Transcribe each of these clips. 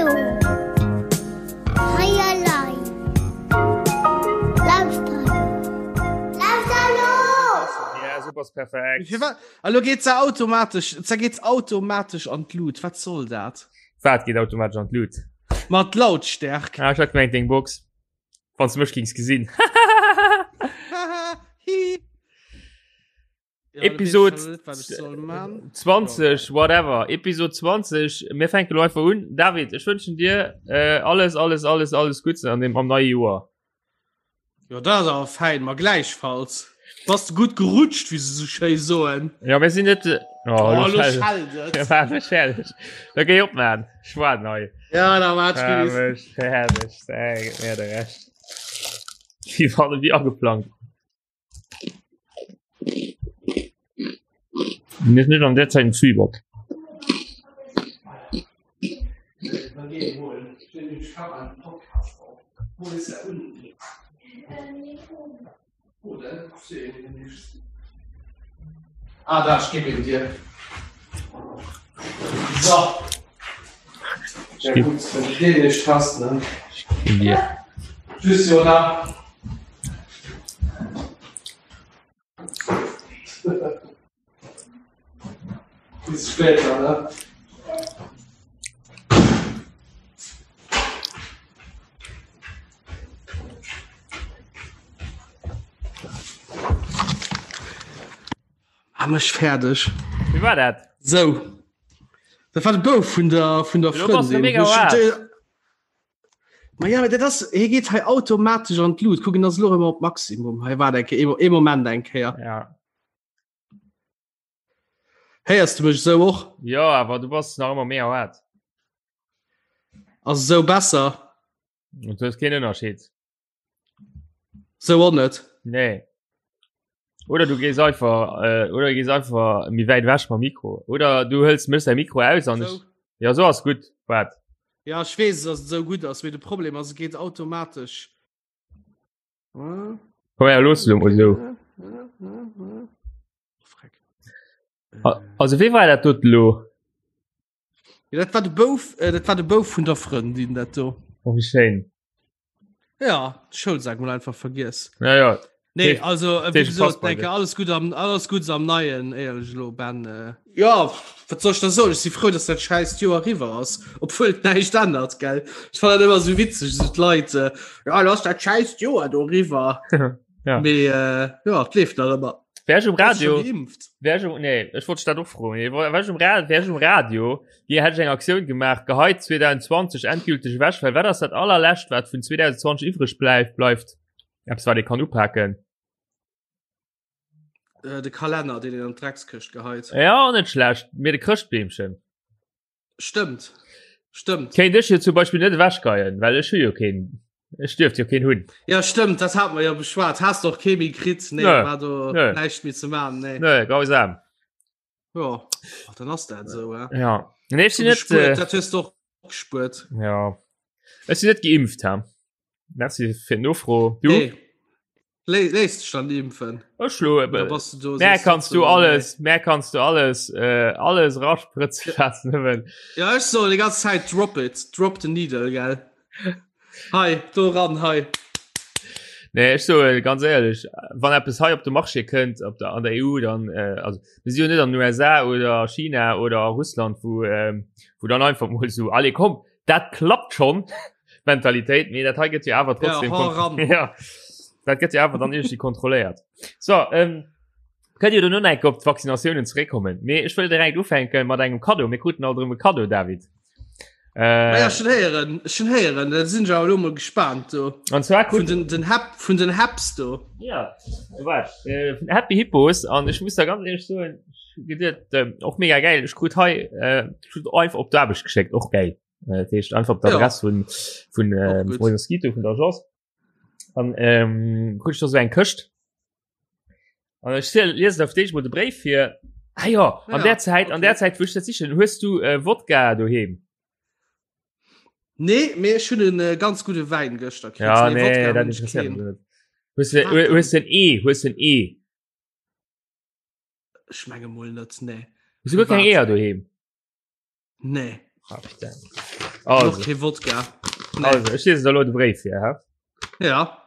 Hallo. Hei elei. Lauschter elo. Lauschter elo! Ja, super, ist perfekt. Firwat? Elo geet se automatesch, se geet automatesch an d'Lut. Wat soll dat? Wat geet automatesch an d'Lut? Ma d'Lautstärk. Ah, ech hat gemengt deng Box. Wann du mech gings gesinn. Hi. Ja, Episode da weess ich schon net, wat ich soll man. 20, whatever. Episode 20. Mir fänken lo einfach un. David, ech wënschen dir äh, alles, alles, alles, alles Gutts an dem am neie Joer. Ja, dat ass awer fein, ma gläichfalls. Bass du gutt gerutscht, wéi se sou schéi soen. Ja, mir sinn net. Oh, Oh, lo lo schell- schellt et. Ja, war mech fertig. Da géi op, man. Ech war nei. Ja, da war War et mech fertig. Sag mir de Recht. Wie war wie ageplangt. Mir net an der Zeit en Zwieback. Ah, da, ich gebe ihn dir. So. Ja, gut, wenn du den nicht hast, ne? In dir. Tschüss, Jona. Bis später, ne? Ah, mech fäerdeg. Wie war dat? Sou. Dat war de Bouf vun der, vun der Lo bass du Frëndin. mega Wo ich- wahr. de- Ma ja, dat ass, hie geet hei automatesch an d'Lut. Kucken, ass lo ëmmer op Maximum. Hei war eng Kéier, ee Moment eng Kéier. Ja. Héiers du mech esou och? Ja, awer du bass nach ëmmer mega haart. Ass esou besser? Und du hues keen Ënnerscheed. Sou och net. Nee. Oder du gees einfach äh, oder gees einfach méi wäit ewech mam Mikro. Oder du hëls mech säi Mikro aus an ech. Ja so ass gutt. Wat? Ja ech weess dass et esou gutt ass, mee de Problem ass et geet automatesch. Komm her, looss lo mol esou. Freck. Also wee war dat dot lo? Ja, dat war de Bouf, äh, dat war de Bouf vun der Frëndin dat do. Oh, wéi schéin. Ja, Schoulsak mol einfach vergiess. Ja, ja. Nee, Dee- also äh, dee wie gesagt, passt bei denke, dir. alles gut am alles gut am neien éierlech lo Ben. Äh. Ja, wat soll ich da soen? Ich si frou, dass dat scheißt Joer riwwer ass, obwuel et näischt ännert, gell? Ich fand dat ëmmer so witzeg, so d'Leit, äh, ja, lass dat scheißt Joer do riwwer. Ja. Mee äh, ja, et leeft nach ëmmer. Wär ech um Bass du Radio, schon geimpft? wär ech um, nee, ech wollt dat och froen. Nee, wär ech um Radio, wär ech um Radio, hier hätt ech eng Aktioun gemaach, geheit 2020 endgültig ewech, well wat ass dat allerlescht, wat vun 2020 iwwreg bleift, bleift? Eppes, wat ee kann upaken. Äh, de Kalenner, deen een an d'Dreckskëscht geheit. Ja, net schlecht, mee de Chrëschtbeemchen. Stëmmt. Stëmmt. Kéint ech jo zum Beispill net ewechgeien, well ech hu jo keen, ech dierft jo keen hunn. Ja stëmmt, dat hat mer jo beschwat. Has de och kee méi kritt? Nee, Nö. war do Nö. näischt méi ze man. Nee. Nö, grausam. Ja, Ach, dann ass dat esou, äh. Ja. Nee, ech sinn net, Gespuert, äh, dat hues du och gespuert. ja. Ech sinn net geimpft, ha. Merci fir d'Nofro. Du? Nee. Léis dech dann impfen. Ech lo, äh, Da bass du do. Mehr sees kannst du trotzdem, alles, mehr kannst du alles, äh, alles raspritzen lassen, nëmmen. Nee. Ja, ech soll die ganze Zeit drop it, drop the needle, gell. Hei, do ran, hei. Nee, ech soe ganz éierlech, wann eppes hei op de Marché kënnt op der an der EU, dann äh, also mir si jo net an den USA oder China oder Russland, wou ähm, wou dann einfach mol so allez komm, dat klappt schon Mentalitéit, mee dat hei gëtt jo awer trotzdem Ja, hau ran. ja, dat gëtt jo awer dann irgendwie kontrolléiert. So ähm, kënnt jo duerno nach eng Kéier op d'Vaccinatiounen zeréckkommen, mee ech wëll direkt ufänke mat engem Cadeau. Mir kruten alt erëm e Cadeau, David. Äh, ja, schon héieren schon héieren da sinn ja lo mol gespannt do an zwar vun den den Hap vun den Haps do ja wat äh, vun Happy Hippos an ech muss da ganz ehrlich soen gedet äh, och mega geil ech krut hei äh, krut einfach op d'Aarbecht geschéckt och geil äh, dat heescht einfach op d'Adress ja. vun vun äh, Mosquito vun der Agence an ähm, krut ich da so eng Këscht An ech liesen auf d'éischt mol de Bréif fir. Ah ja, an ja, der Zäit, okay. an der Zäit wou ech dat sichen, hues du äh, Wodka doheem? Nee, mee ech hunn en äh, ganz gudde Wäin gëschter kritt. Ja, nee, nee Wodka dat interesséiert mech net. Hues du, hues du en E? Hues du en E? Ech menge mol net, nee. Hues du guer keng Eeër doheem? Nee. Ah, putain. Also. Kee Wodka. Nee. Also, ech liesen der lo de Bréif vir, hä? Ja.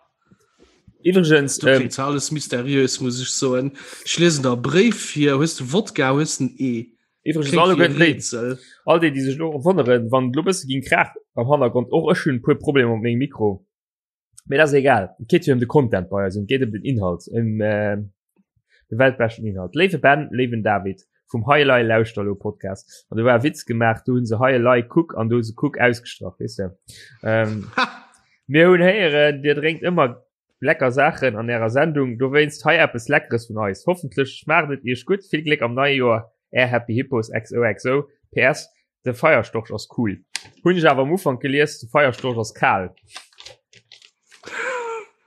Iwwregens, Du ähm, klingt zwar alles mysteriös, muss ich soen. Ich lesen der Bréif hier, hues du Wodka, hues den E. iwwregens Klingt alle wie e déi, Rätsel. all déi, déi sech lo wonneren, wann et lo bësse ging kraach am Hannergrond, och ech hunn e puer Problemer mat mengem Mikro. Mee dat ass egal. Et geet jo ëm de Content bei eis, et geet ëm den Inhalt, ëm äh, de weltbeschten Inhalt. Léiwe Ben, léiwen David vum Hei Elei Lauschter elo Podcast. An do war e Witz gemaach, do hunn se Hei Elei Kuck an do hu se Kuck ausgestrach, weess de. Ähm, mir hunn héieren, Dir drénkt ëmmer lecker Saachen an ärer Sendung, dowéinst hei eppes Leckeres vun eis. Hoffentlech schmaacht et iech gutt. Vill Gléck am neie Joer, är Happy Hippos XOXO. PS. De Feierstorch ass cool. Hunn ech awer am Ufank gelies, de Feierstorch ass kal.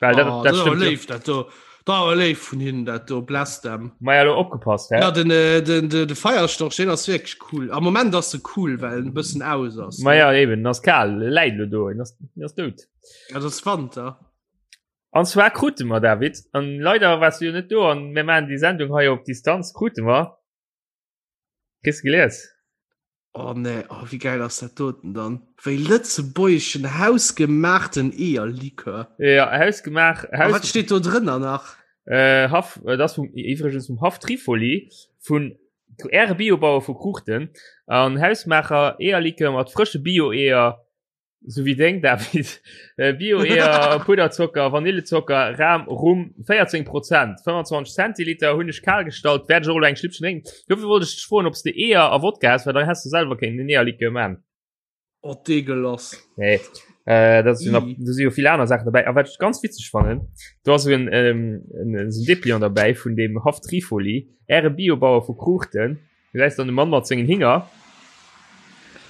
Well dat, Oh, dat dat ass awer stëmmt jo. léif, dat do. Dat awer léif vun hinnen, dat do. Bless them. Maja, lo opgepasst, hä? Ja, den, äh, den, den, de Feierstorch, den ass wierklech cool. Am Moment ass se cool, well en e bëssen aus ass. Maja, eben, en ass kal, e läit lo do, en ass, en ass dout. Ja, dat ass Wanter. An zwar krute mer, David, an leider waars du jo net do, an mir maachen déi Sendung hei op Distanz, krute mer Kriss gelies? Oh nee, oh, wéi geil ass dat doten dann? Wéi lëtzebuergeschen hausgemaachten Eeërlikör. Ja, hausgemaach. Haus wat steet do drënner nach? Äh, Haff, äh, das vum, iwwregens vum Haff Trifoli, vun Äre Biobauer vu Kruuchten, an Hausmaacher Eeërlikör mat frësche Bio-Eeër, Sou wéi deng, David. Äh, Bio-Eeër, Pudderzocker, Vanillezocker, Ram, Rum, 14 Prozent, 25 Zentiliter, hunn ech kal gestallt, wäert ech och elo eng Schlippchen drénken. Dofir wollt ech dech froen, ob s de Eeër a Wodka häss, well dann häss de selwer kéinten en Eeërlikör man. Oh, deegelass. Nee, äh, dat sinn Ii. do si jo vill aner Saachen dobäi. A wat ech ganz witzeg fannen, do ass en, ähm, en, en, en Depliant derbäi vun dem Haff Trifoli, Äre Biobauer vu Kruuchten. Du gesäis dann de Mann mat sengen Hinger.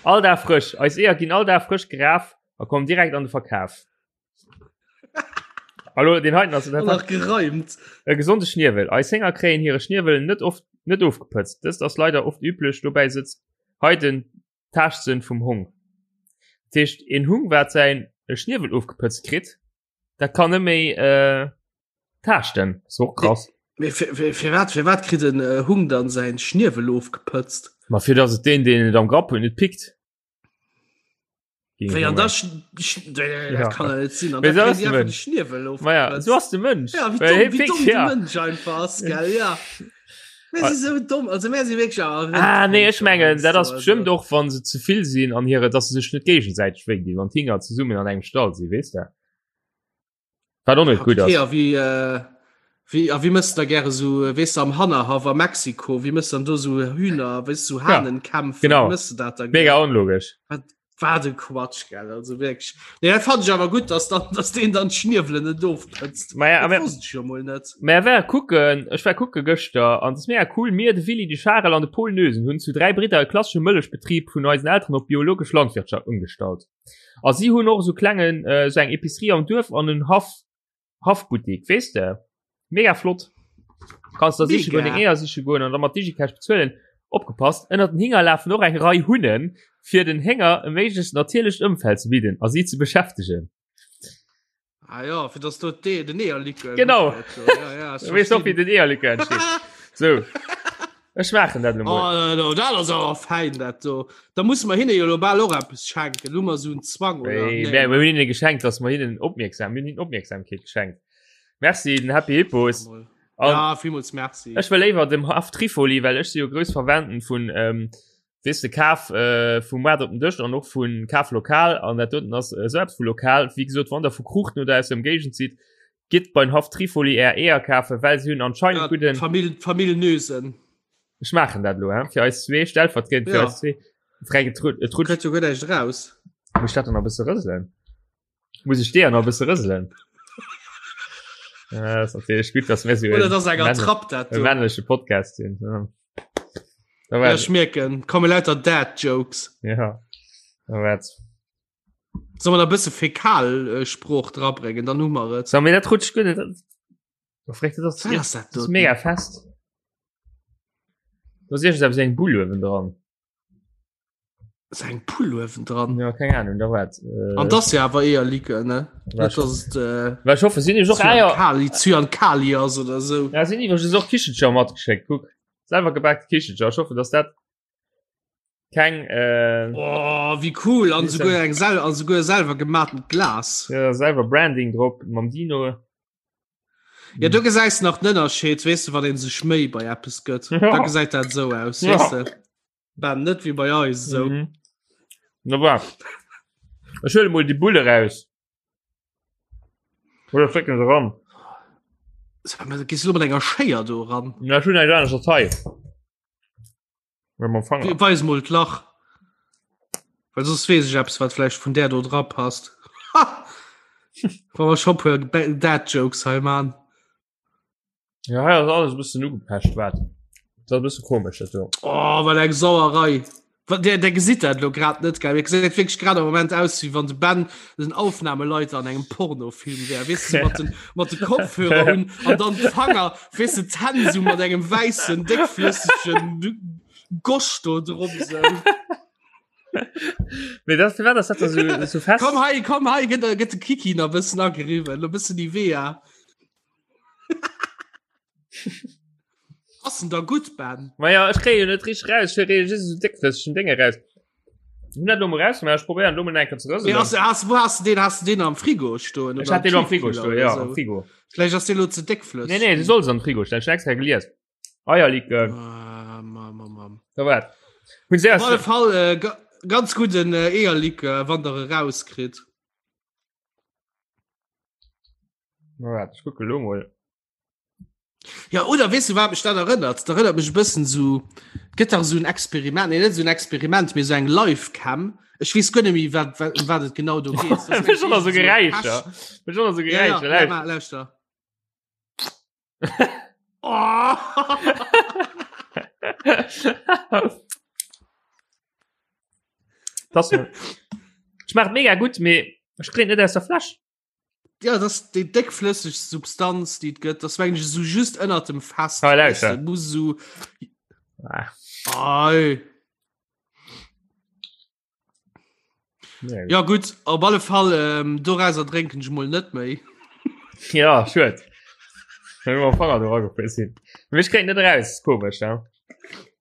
All Dag frësch. Eis Eeër ginn all Dag frësch geraf a kommen direkt an de Verkaf. Hallo, den heiten ass nach gereimt. E gesonde Schniewel. Eis Hénger kréien hire Schniewel net oft net ofgepëtzt. Dëst ass leider oft üblech. Dobäi sëtzt hei den Taaschtsënn vum Hong. Dat heescht, een Hung wat säin Schniewel ofgepëtzt kritt, Dat kann net méi äh, taaschten. Ass och krass. Mee fir, fir, fir wat, fir wat kritt en äh, Hung dann säin Schniewel ofgepëtzt? Ma fir dass et deen, deen et am Grapp huet, net pickt. Wéi an da sch, sch, äh, Ja. dat kann ja net sinn. An Mee da so ass kritt de einfach de Mënsch. Schniewel Ma ja, ofgepëtzt. so ass de Mënsch. Ja, wéi Well domm, hie wéi pickt, domm de ja. Mënsch einfach ass, gell, ja. Mir si sou domm, also mir si wierklech awer Ah, nee, ech Rëndvölker mengen, dat ass heiansdo, bestimmt also. och, wann se ze vill sinn an hire, dass se sech net géigesäiteg wéi dinn, wann d'Hinger zesummen an engem Stall sinn, weess de? Wat och net gutt Okay, ass. a wéi, äh, wéi, a wéi mëss da gäre so, äh, weess de, am Hannerhaff a Mexiko, wéi mëss dann do so Hühner, weess du, so Hahnenkämpfe, genau. wéi mëss de dat da Mega onlogesch. Wat, wat e Quatsch, gell, also wierklech. Nee, dat fand ech awer gutt, dass dann, dass deen dann d'Schniewelen net ofpëtzt. Ma ja, Dat aber- wosst ech jo mol net. Mä war kucken, ech war kucke gëschter an et ass mega cool, mir, de Willy, de Charel an de Paul Noesen hunn zu 3 Bridder e klassesche Mëllechbetrib vun eisen Elteren op biologesch Landwirtschaft ëmgestallt. A si hunn och esou klengen äh, esou eng Epicerie am Duerf an en Haff Haffbuttik, weess de? Mega flott. Kanns da siche goen, Mega. deng Eeër siche goen an da mat Digicash bezuelen. Opgepasst, ënnert den Hinger lafen och eng Rei Hunnen, fir den Hénger e méiglechst natierlecht Ëmfeld ze bidden a si ze beschäftegen. Ah ja, fir dass do de, den Eeërlikör Genau. gutt gëtt, so. Ja, ja, Du weess och, wéi den Eeërlikör entsteet. So. Ech maachen dat elo mol. Oh, no, dat ass awer fein, dat do. Da musse mer hinne jo lo bal och eppes schenken. Hu mer esou en Zwang, oder? Nee, Nee. mir hunn hinne geschenkt, dass mer hinnen opmierksam, mir hunn hinnen Opmierksamkeet geschenkt. Merci den Happy Hippos. Mol. An Ja, villmools merci. ech wëll léiwer dem Haff Trifoli, well ech si jo grouss Verwenden vun, ähm, weess de, Kaf äh, vum Moart op den Dësch an och vun Kaf lokal an dat doten ass äh, sou eppes vu lokal. Wéi gesot, wann der vu Kruuchten oder aus der Ëmgéigend sidd, gitt beim Haff Trifoli är Eeër kafen, well se hunn anscheinend Ja, gudden. Famill, Famill Nösen. Ech maachen dat elo, hä? Fir eis zwee, stellvertriedend fir Ja. eis zwee. Fränk, et rut- et rutscht. Kritt jo guer näischt raus. Muss ich dat dann nach e bësse rëselen? Muss ich dir nach e bësse rëselen? Ja, ass natierlech gutt, dass mir sou Oder en dat ass eng männ- Attrapp dat e do. männleche Podcast sinn. Ja. Da Ja, war, ech mierken, komme lauter Dad-Jokes. ja. Da war Soll man da bësse Fäkalsprooch drabréngen, dann hu mer et. So, mir dat rutscht gutt. Dat, dat, dat ass, Was ass dat das ist do? mega fest. Da ass iergendeppes eng Bull uewen dran. Ass eng Pull uewen dran? Ja, keng Ahnung, da wat. Äh, An das ja awer eher Likör, ne? War Net, dass et äh, Well ich hoffe, sinn iwwer och Eier. Zyankali, Zyankali ass oder sou. Ja, sinn iwwer och Kichelcher matgeschéckt. Kuck. Selwer gebaakte Kichelcher. Ich hoffe, dass dat. Keng äh, oh, wie cool an souguer eng sel an souguer selwer gematen Glas. Ja, selwer Branding drop mam Dino. Ja du gesäis nach den Ënnerscheed weess du wat een sech méi bei Apps gëtt. Ja. Da gesäit dat sou aus ja. weess du. Ben net wie bei eis sou. Mhm. Na war. Ech huele mol déi Bulle raus. Oder flécken se ran. Gehst du mat enger Schéier do ran? Na, ech hunn eng anescht hei. Weis mol d'Lach. Well soss weess ech eppes, wat vläicht vun där do dra passt. Wa mer scho puer Dad Jokes hei man. Ja, hei ass alles e bëssen ugepecht, wat? Dat ass e bësse komesch, dat do. Oh, wat eng Sauerei. Der, der gesitt dat lo grad net, gell? Mir gesäit wierklech grad am Moment aus, wéi wann de Ben den Aufnahmeleiter an engem Pornofilm wär. Weess du, mat den, mat de Kopfhörer un an dann d'Fanger, weess du, d'Hänn sou mat engem wäissen, déckflëssegen Gosch do drop sou. Mee dat, firwat ass dat da sou, sou fest? Komm hei, komm hei, gëtt, gëtt de Kiki nach e bëssen ageriwwen, e bëssen Nivea. Ass en da gutt, Ben? Ma ja, ech kréie jo net richteg raus. Ech kréie just esou déckflëssegen Dénge raus. Hun dat lo mol rausgemaach, ech probéieren lo mol eng Kéier ze rëselen. Mee has, has, wou has du deen, has du deen am Frigo stoen? Ech hat deen am Frigo stoen, ja, am Frigo. Vläicht ass dee lo ze déckflësseg. Nee, nee, du solls am Frigo stellen, ech hun extra gelies. Eierlikör. Ah, mam, mam, mam. Da wat? Hun se Op alle Fall äh, ga, ganz gudden äh, Eierlikör, wann der e rauskritt. Na wat, ech kucke lo mol. Ja oder weess du wat mech dat erënnert? Dat erënnert mech e bëssen sou gëtt dach sou en Experiment, nee net sou en Experiment, mee sou eng Livecam. Ech weess guer net méi wat wat ëm wat et genau do geet. Dat ass schon so Geräischer. Schon so Ja, Geräischer. ja, ja, lauschter. Oh! Das schmeckt mega gut, mee ech kréien net aus der Fläsch. Ja, das ist déi déckflësseg Substanz, déi et gëtt. Das war eigentlich so just ënnert dem Fest. Ah, lauschter. Weißt du, muss so. Ah. Ei. Nee. Ja gut, op alle Fall ähm, dorauser drénken ech mol net méi. Ja, schued. Wenn wir Fanger do agefriss sinn. Mee ech kréien net raus, komesch, ja.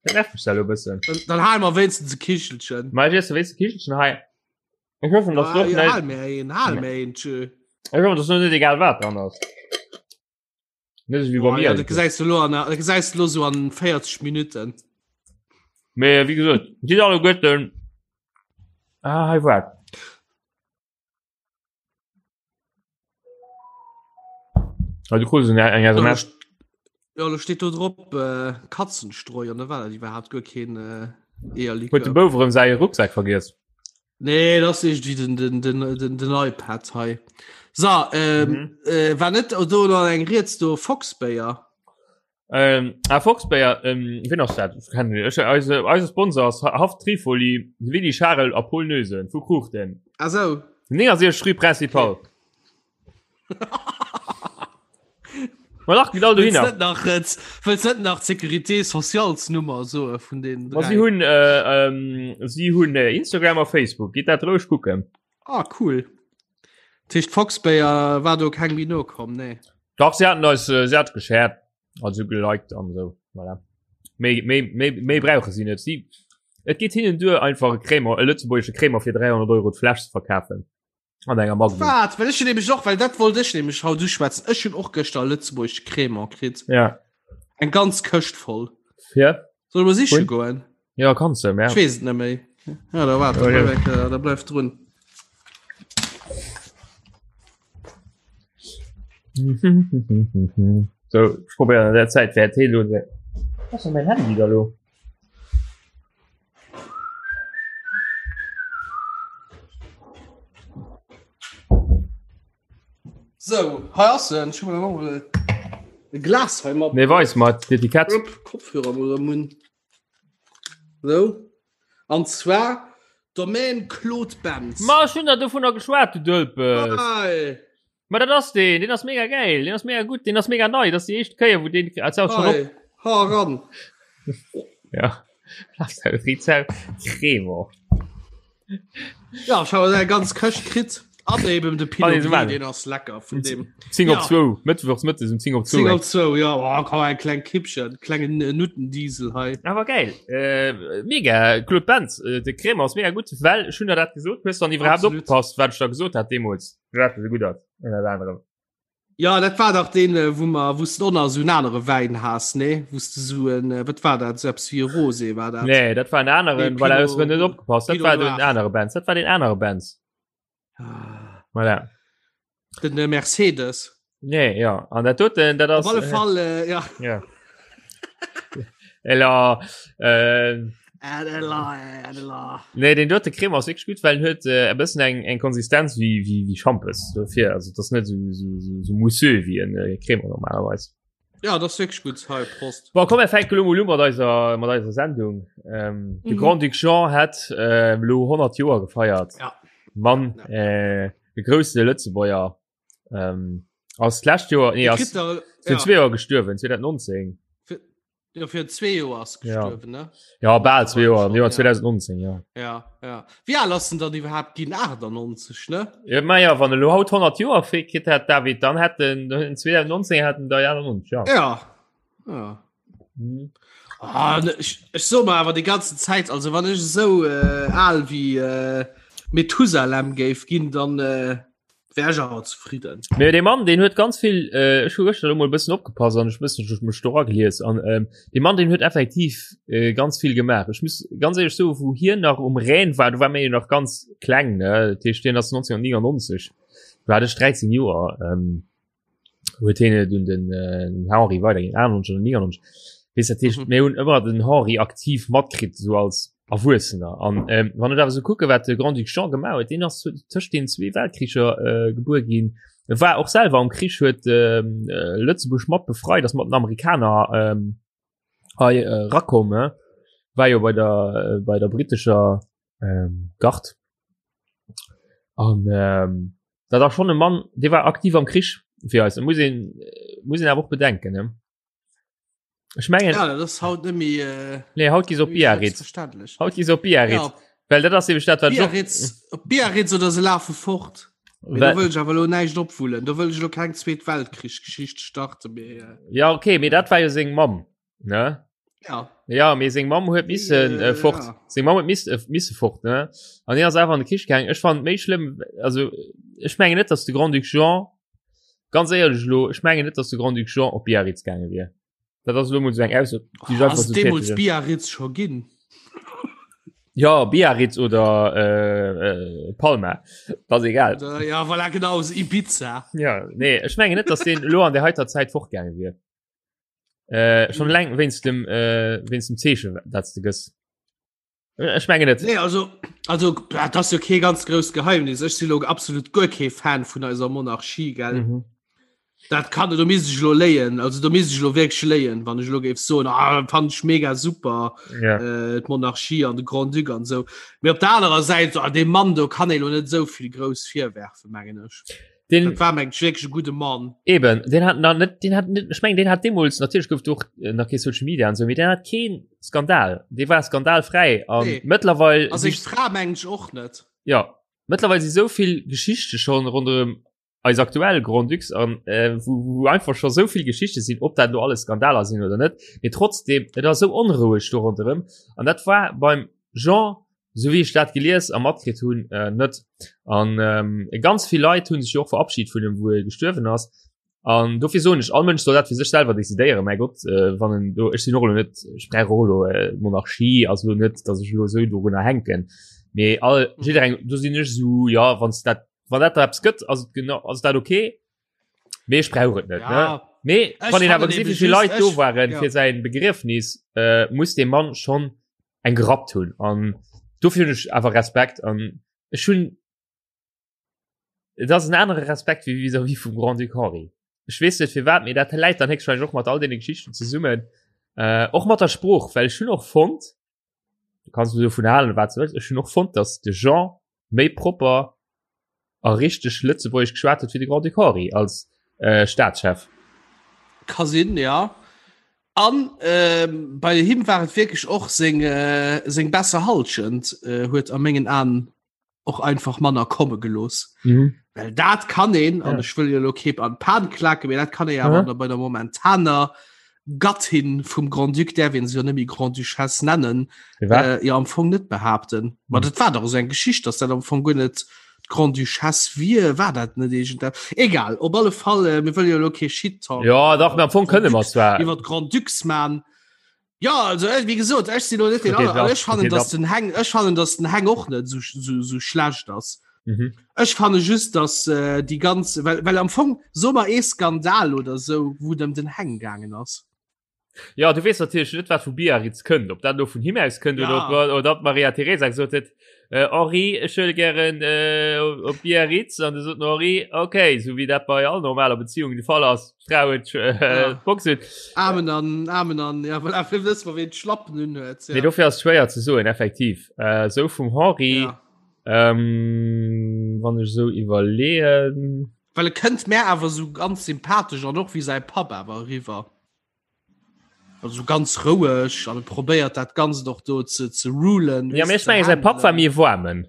Dat nervt mech da lo e bëssen. Dann, dann hale mer wéinstens e Kichelchen. Ma ech iesse wéinst e Kichelchen hei. Ech hoffen, dass Ah, doch ja, net, hal mir een, hal mir een, tschö. ech hoffen, dass noch net egal wat dran ass. Net esou wéi bei Oh, mir. ja, dat gesäis du lo an, dat gesäis du lo so an 40 Minuten. Mee wéi gesot, si alleguerten. Ah, hei waart. Ah, du krus eng eng SMS. Ja, lo steet do drop äh, Katzenstreu an da war dat iwwerhaapt guer keen äh, Huet de Eierlikör. Bouf erëm säi Rucksak vergiess? Nee, dat ass irgendwie den, den, den, den, den iPad hei. So, ähm, Mhm. äh, war net do noch eng Rieds do Foxbéier? Ähm, ah, Foxbéier, ähm, wien ass dat? Ech kennen ech, eise, eise Sponsor ass Haff Trifoli, Willy Charel a Paul Noesen vu Kruuchten. Ah so. 69 Rue Principale. Ma lach geht all Wëlls dohinner. net nach, äh, wëlls net nach d'Sécurité socialsnummer soe vun den Ma si dräi? hunn äh, ähm, si hunn äh, Instagram a Facebook. Gitt dat roueg kucken. Ah, cool. Dat heescht Foxbéier war do keng méi nokomm, nee. Dach, si haten eis äh, si hat geshared, also geliked an esou. Voilà. Méi, méi, méi, méi brauche si net. Si, et geet hinnen duer, einfach e Crémant, e lëtzebuergesche Crémant fir 300 Euro d'Fläsch ze verkafen. An enger Magnum. Wat? Well ech hunn nämlech och, well dat wollt ech nämlech haut uschwätzen, ech hunn och gëschter e lëtzebuergesche Crémant kritt. Ja. Eng ganz Këscht voll. Fir? Soll ech mol siche Vun? goen? Ja, kanns du, ja. Ech weess et net méi. Ja, da waart, da Ja, ja. bleif, eng- da bleif drun. So, ich probiere an der Zeit wer Tee lo. Was ist mein Handy da lo? So, hei ass en. Ech hu mer mol e Glas hei mat. Nee, weis mal d'Etikett. Upp, Kopfhörer mol am Mund. So. An zwar Domaine Claude Bentz. Ma ech hunn der dovunner geschwat, du Dölpes. Hei. Ma dat ass deen, deen ass mega geil, deen ass mega gutt, deen ass mega nei, dat ass déi éischt Kéier, wou deen als auch schon op. Hei. Ha ran. Ja. Rizal Cremant. Ja, ech hu eng ganz Këscht kritt. An eben de Pinot Gris, deen ass lecker vun dem. 10 op 2, Mëttwochs mëttes um 10 op 2. 10 op 2, ja, oh, komm, eng kleng Kippchen, klengen äh, Nuttendiesel hei. Awer geil. Äh, mega, Claude Benz, äh, de Cremant ass mega gutt, well ech hunn der dat gesot, hues dann iwwerhaapt opgepasst, wat ech da gesot hat deemools, firwat e sou gutt ass, ënnert anerem. Ja, dat war dach deen, äh, wou mer, wou s du och nach esou en anere Wäin has, nee? Wou s du esou en, äh, wat war dat, esou eppes wéi e Rosé war dat? Nee, dat war en aneren, Nee, voilà, hues du net opgepasst, dat Pinot war den Noir. anere Benz, dat war den anere Benz. Ah. Voilà. Den äh, Mercedes. Nee, ja, an dat doten, dat ass. Op alle Fall, äh, ja. Ja. Ella, äh, Nee den dote Creme ass wierklech gutt, well en huet äh, e bëssen eng eng Konsistenz wéi wéi wéi Schampes dofir also das net so, so, so, so mousseux wéi en äh, Creme normalerweis. Ja das wierklech gutt hei Prost. Bon, komm mir fänke lo mol u mat eiser mat eiser Sendung. Ähm, de mhm. Grand-Duc Jean hat äh, lo 100 Joer gefeiert. Ja. Mann ja. äh, de grousse Lëtzebuerger ähm, ass d'lescht Joer nee, ass, der, ja. zwee Joer gestuerwen 2019. Ja, fir zwee Joer ass gestuerwen, ja. ne? Ja, bal zwee Joer, am Joer 2019, ja. Ja, ja. Wéi al ass en dann iwwerhaapt ginn? 98, ne? Ja, ma ja, wann e lo haut 100 Joer fir kritt hätt, David, dann hätt en 2019 hätt en der 91, ja. Ja. Ja. Mhm. Ah, ne, ech, ech so mer awer die ganze Zäit, also wann ech esou äh, al wéi äh, Methusalem géif ginn, dann äh, Wär ech awer zefridden. Mee dee Mann, deen huet ganz vill, äh, ech hu gëschter elo mol e bëssen opgepasst an ech bëssen ech mech do ragelies an ähm, dee Mann, deen huet effektiv äh, ganz vill gemaach. Ech muss ganz éierlech soen, wou hien nach um Rhän war, do war mir jo nach ganz kleng, ne? Dat heescht, hien ass 1999, do hat ech 13 Joer. Ähm, huet hien et un den äh, Henri weiderginn, 98 oder 99. Weess dat heescht, mhm. mir hunn ëmmer den Henri aktiv matkritt, so als Erwuessener. An ähm, wann ech awer so kucke, wat de Grand-Duc Jean gemaach huet, deen ass tëscht den zwee Weltkricher äh, gebuer ginn. E war och selwer am Krich, huet ähm, äh, Lëtzebuerg mat befreit, ass mat den Amerikaner ähm, hei äh, rakomm, ne? war jo bei der, äh, bei der britischer ähm, Gard. An ähm, dat ass schon e Mann, dee war aktiv am Krich fir eis. Muss een, muss een awer och bedenken, ne? Ech mengen ja, dat ass haut net méi äh, nee, haut gi op Biarritz. Haut gi op Biarritz. Ja. Well dat ass eben dat wat Biarritz, op Biarritz oder se lafe fort. Mee do wëll ech awer lo näischt opwullen. Do wëll ech lo keng Zweet Weltkrich-Geschicht starten. Mee, äh, ja okay, mee dat war jo seng Mamm. Ne? Ja. Ja, mee seng Mamm huet missen äh, fort. Ja. Seng Mamm huet miss, äh, misse fort, ne? An hien ass einfach an de Krich gaangen. Ech fand méi schlëmm, also ech mengen net, dass de Grand-Duc Jean, ganz éierlech elo, ech mengen net, dass de Grand-Duc Jean op Biarritz gaange wier. Dat ass elo mol sou eng Ausso, déi ech einfach Ass sou deemools tätegen. Biarritz scho ginn? Ja, Biarritz oder äh, äh, Palma, dat ass egal. Oder, ja, voilà, genau, so Ibiza. Ja, nee, ech mengen net, dass deen elo an der heiter Zäit fortgaange wier. Äh, schon leng wéinst dem äh, wéinst dem Zeechen, dat du gëss. Äh, ech mengen net. Nee, also, also dat ass jo kee ganz grousst Geheimnis. Ech si lo absolut guer kee Fan vun eiser Monarchie, gell? Mhm. Dat kann do misst ech lo léien. Also do misst ech lo wierklech léien, wann ech lo géif soen, ah, fand ech mega super Ja. äh, d'Monarchie an de Grand-Duc an sou. Mee op der anerer Säit, so, ah, deem Mann do kann ee lo net esou vill grouss virwerfen, mengen ech. Den, Dat war mengt wierklech e gudde Mann. Eben, den hat nach net, den hat net, ech mengen, den hat deemools, natierlech gouf do och äh, nach kee Social Media an sou, mee den hat keen Skandal. Dee war skandalfräi an Nee. mëttlerweil A seng Fra mengen ech och net. ja, mëttlerweil si sou vill Geschichte schon ronderëm eis aktuell Grand-Ducs an äh, wou, wou einfach scho sou vill Geschichte sinn, ob dat lo alles Skandaler sinn oder net, mee trotzdem, et ass sou onroueg do ronderëm an dat war beim Jean Sou wéi ech dat gelies a matkritt hunn, äh, net. An ähm, ganz vill Leit hunn sech jo och verabschied vun em, wou e gestuerwen ass. An dofir soen ech, all Mënsch soll dat fir sech selwer decidéieren. Mäi Gott, äh, wann en do, ech sinn och elo net, ech brauch och elo äh, Monarchie ass elo net, datt ech elo esou dorunner hänken. Mee all, jiddereng, do sinn ech esou, ja, wann s dat, wann dat der eppes gëtt, ass et genau, ass dat okay. Mee ech brauch et net. Ja. Ne? Mee Ech wann een awer fannen gesinn, eben wéi vill just, Leit do ech- waren ja. fir säin Begriefnis, äh, muss dee Mann schon eng gerappt hunn. An dofir hunn ech awer Respekt an ech hunn et ass en anere Respekt wéi vis-à-vis vum Grand-Duc Henri. Ech weess net firwat, mee dat läit dann héchstwahrscheinlech och mat all deene Geschichten zesummen. Äh, och mat der Sprooch, well ech hunn och fonnt, du kanns dovun halen wat du wëlls, ech hunn och fonnt, datt de Jean méi propper a richteg Lëtzebuergesch geschwat huet wéi de Grand-Duc Henri als äh, Staatschef. Ka sinn, ja. An ähm, bei him war et wierklech och seng, äh, seng besser Halschent äh, huet a mengen Aen. och einfach manner komme gelooss. Mhm. Well dat kann een, an ja. ech wëll jo lo keep an Pan klaken, mee dat kann ee awer mhm. bei der momentaner Gattin vum Grand-Duc, däerf een se jo net méi Grand-Duchesse nennen, äh, jo am Fong net behaapten. Ma mhm. dat war doch esou eng Geschicht, dass dat am Fong guer net d'Grande-Duchesse wier, war dat net iergend Egal, op alle Fall, äh, mir wëlle jo lo kee Shit-Talk. Ja, dach, am Fong kënne mer zwar. Iwwer d'Grand-Ducs man. Ja, also äh, wie gesot, ech sinn lo net den aller, aber ech fannen, dass den Heng, ech fannen, dass den Heng och net so, so, so schlecht ass. Mhm. Ech fanne just, dass äh, déi ganz, well, well am Fong so mer ee Skandal oder so, wou et ëm den Heng gaangen ass. Ja, du weess natierlech net, wat vu Biarritz kënnt, ob dat lo vun him aus kënnt ja. oder ob, oder ob Maria Teresa gesot huet, äh, Henri, ech wëll gären äh, op Biarritz an du sot den Henri, okay, so wéi dat bei all normaler Beziehung de Fall ass, d'Fra huet äh, ja. d'Box huet. Amen an Amen an ja, well afir wëss mer ween d'Schlappen un huet. Ja. Nee, dofir ass schwéier ze soen, effektiv. Äh, sou vum Henri, ja. ähm, wann ech sou iwwerleeën. Well e kënnt mär awer sou ganz sympathesch an och wéi säi Papp awer eriwwer. Also ganz roueg an e probéiert dat Ganzt och do ze, ze rulen. Ja, mee ech menge säi Papp war méi e Waarmen.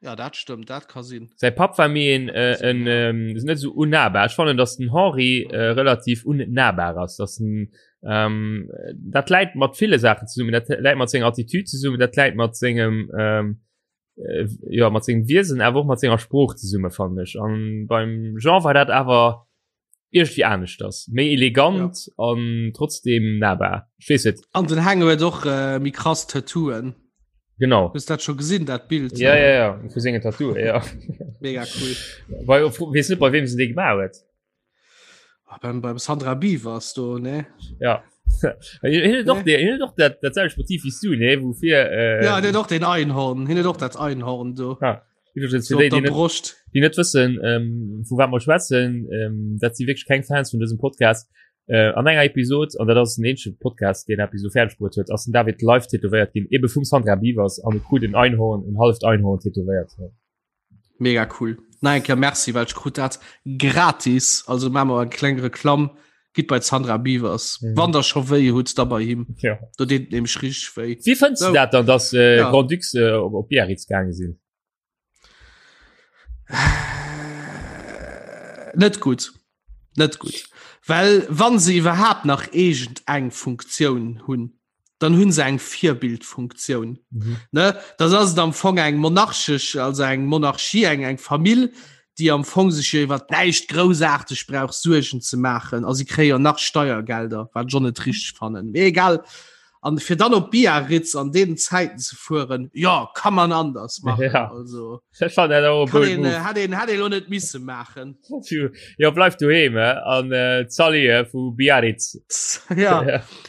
Ja, dat stëmmt, dat ka sinn. Säi Papp war méi en, äh, en ähm, net sou unnahbar. Ech fannen, datt den Henri äh, relativ unnahbar ass, datt en ähm, dat läit mat ville Saachen zesummen, dat läit mat senger Attitüd zesummen, dat läit mat sengem ähm, äh, ja mat sengem Wiesen awer och mat senger Sprooch zesumme fannen ech an beim Jean war dat awer irgendwie aneschters méi elegant ja. an trotzdem nahbar ich weess net an den Heng huet och äh, méi krass Tattooen genau hues dat scho gesinn dat Bild ja ja ja vu senge Tattoo ja mega cool bei weess net bei wem se dee gemaach huet Ah, beim, beim Sandra Beavers do ne ja doch nee. doch dat dat selwecht Motiv wie du ne wofir äh, ja den doch den Einhorn hin doch dat Einhorn do ja. So déi, déi, net, Brust. déi net wëssen ähm, vu wat mer schwätzen ähm, dat si wierklech keng Fans vun dësem Podcast äh, an enger Episod an dat ass den eenzege Podcast deen Episode fäerdeg bruet huet ass den David live tätowéiert ginn ebe vum Sandra Beavers an e krut en Einhorn en halft Einhorn tätowéiert. Mega cool. Nach eng Kéier Merci, well ech krut dat gratis. Also maache mer eng kleng Reklamm. Gitt bei d'Sandra Biewers. Mhm. Wann der scho wéi hutt, da bei him. Ja. Do deet et nämlech richteg wéi. Wéi fënns du dat dann, dass äh, ja. Grand Ducs äh, op, op Biarritz gaange sinn? Net gutt. Net gutt. Well wann se iwwerhaapt nach iergend eng Funktioun hunn, dann hunn se eng Virbildfunktioun. Mhm. Ne? Das ass et am Fong eng monarchesch, also eng Monarchie, eng eng Famill, déi am Fong sech jo iwwer näischt groussaarteg brauch Suergen ze maachen. A si kréie jo nach Steiergelder, wat ech och net richteg fannen. Mee egal. An fir dann op Biarritz an deenen Zäiten ze fueren, jo, kann man anders machen. Ja. Also, Ech fand dat och e kann bold een, Move. äh, hätt een, hätt een lo net misse maachen. Jo, bleif doheem eh, an äh, d'Sally eh, vu Biarritz. Ja.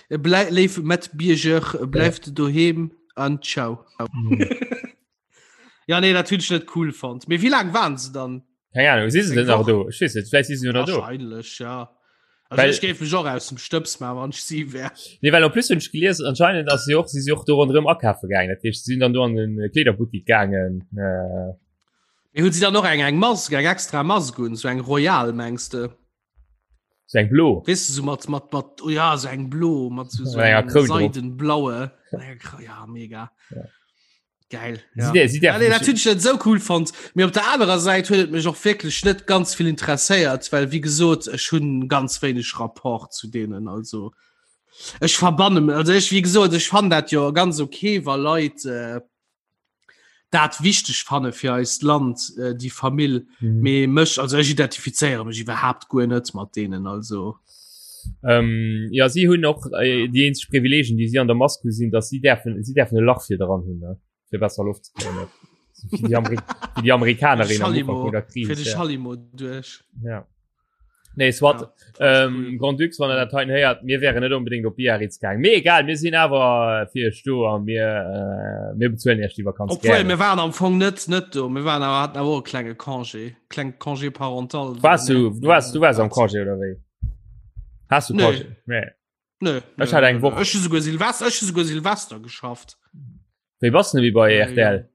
Ja. Blei, léif Matbierger, bleift doheem an ciao. Mhm. Ja, nee, dat hunn ech net cool fonnt. Mee wéi laang waren se dann? Keng Ahnung, si se Eng denn nach Woch? do? Ech weess net, vläicht si se jo nach do. Wahrscheinlech, ja. Also Well- ech géif mech och aus dem Stëbs maachen, wann ech si wär. Nee, well en plus hunn ech gelies, anscheinend ass si och, si si och do ronderëm akafe gaangen. Dat heescht, si sinn dann do an den Kleederbuttik gaangen. Äh, Mee hunn si dann och eng eng Mask, eng extra Mask un, sou eng royal, mengs de? sou eng blo. Weess de, sou mat, mat, mat, oh ja, sou eng blo, mat sou, sou Mat enger engem Kroun drop. seidenblaue. Enger Kro- Ja, mega. Ja. Geil. Sie Ja. der- sie Ja, nee, därfen dat hunn ech net sou cool fonnt. Mee op der anerer Säit huet et mech och wierklech net ganz vill interesséiert, well wéi gesot, ech hunn ganz wéineg Rapport zu deenen. Also ech verbanne also ech wéi gesot, ech fannen dat jo ganz okay, wa Leit äh, dat wichteg fanne fir eist Land, äh, déi Famill. Mhm. Mee mech also ech identifizéiere mech iwwerhaapt guer net mat deenen. Also Ähm, ja si hunn och äh, déi eenzeg Privileegien, déi si an der Mask hu sinn, datt si däerfen si däerfen e Lach fir dran hunn, ne? fir besser Loft ze kréien. Wéi déi Amerik wéi déi Amerikanerin am Ufank vun der Kris. Fir de Ja. Schallimo duerch. Ja. Nee, soit. Ja, Ähm, cool. Grand Ducs, wann der dat heiten héiert, mir wären net unbedingt op Biarritz gaang. Mee egal, mir sinn awer fir iech do a mir, äh, mir bezuelen iech déi Vakanz Obwohl, gären. mir waren am Fong net net do. Mir waren awer hatten awer och e klenge Congé, kleng Congé parental. Warst du, du warst, du warst am Congé oder wéi? Hast du Nee. Congé? Nee. Nö, Ech hat eng Woch. Ech hu souguer Silvester, ech hu souguer Silvester geschafft. Wéi bass du denn wéi bei Ja, RTL?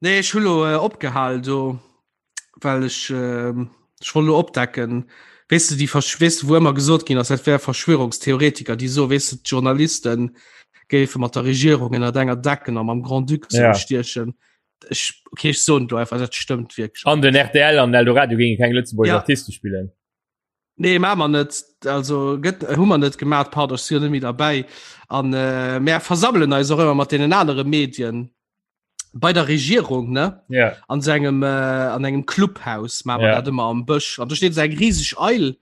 Nee, ech hu lo äh, opgehal do, well ech äh, ech wollt lo opdecken. Weess du, déi Versch weess du, wou ëmmer gesot ginn ass, dat wär Verschwörungstheoretiker, déi so, weess du, d'Journalisten. géife mat der Regierung ënner enger Decken a mam Grand-Duc Ja. stiechen. Ech, okay, ech soen do einfach, dat stëmmt wierklech. An den RTL an Eldoradio géinge keng Lëtzebuerger Ja. Artiste spillen. Nee, maa mer net, also gëtt hu mer net gemaat, pardon, ech si jo net méi derbäi. An äh, mär versammelen eis och ëmmer mat deenen anere Medien bei der Regierung, ne? Ja. An so engem, äh, an engem Clubhaus maa mer Ja. dat ëmmer am Bësch. An do steet esou eng riseg Eil,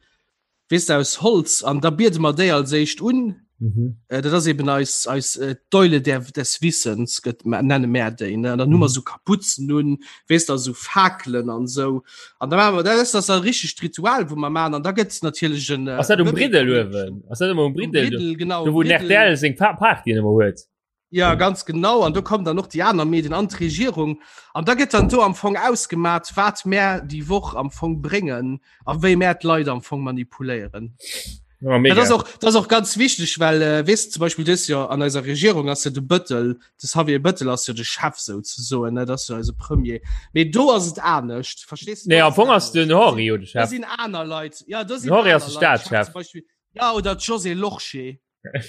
weess de, aus Holz, an da biede mer déi als éischt un. Mhm. Äh, dat ass eben eis, eis äh, d'Eule der, des Wissens, gëtt, nenne mär déi, ne? An dann hu mer Mhm. so Kapuzen un, weess de, so Fakelen an sou. An da maache mer, dat ass das e richtegt Ritual, wou mer maachen. An da gëtt natierlech en. Ass dat um Briddel uewen? Ass dat ëmmer um Um Briddel? Briddel, genau. Do wou den Briddel. RTL seng Pa Partyen ëmmer huet. Ja, ganz genau. An do kommen dann och déi aner Medien an d'Regierung. An da gëtt dann do am Fong ausgemat, wat mär déi Woch am Fong bréngen a wéi mär d'Leit am Fong manipuléieren. Ja, mega. Dat ass och, dat ass och ganz wichteg, well äh, weess zum Beispill dës Joer an eiser Regierung ass jo de Bëttel, de Xavier Bëttel ass jo de Chef souzesoen, ne, dat ass jo eise Premier. Mee do ass et anescht, verstees du? Nee, Do am ass et Fong ass den anescht. Henri jo de Da Chef. sinn aner Leit, ja, do sinn Den Henri ass aner de Leit Chef, Staatschef. zum Beispill, ja, oder d'Josée Lorsché.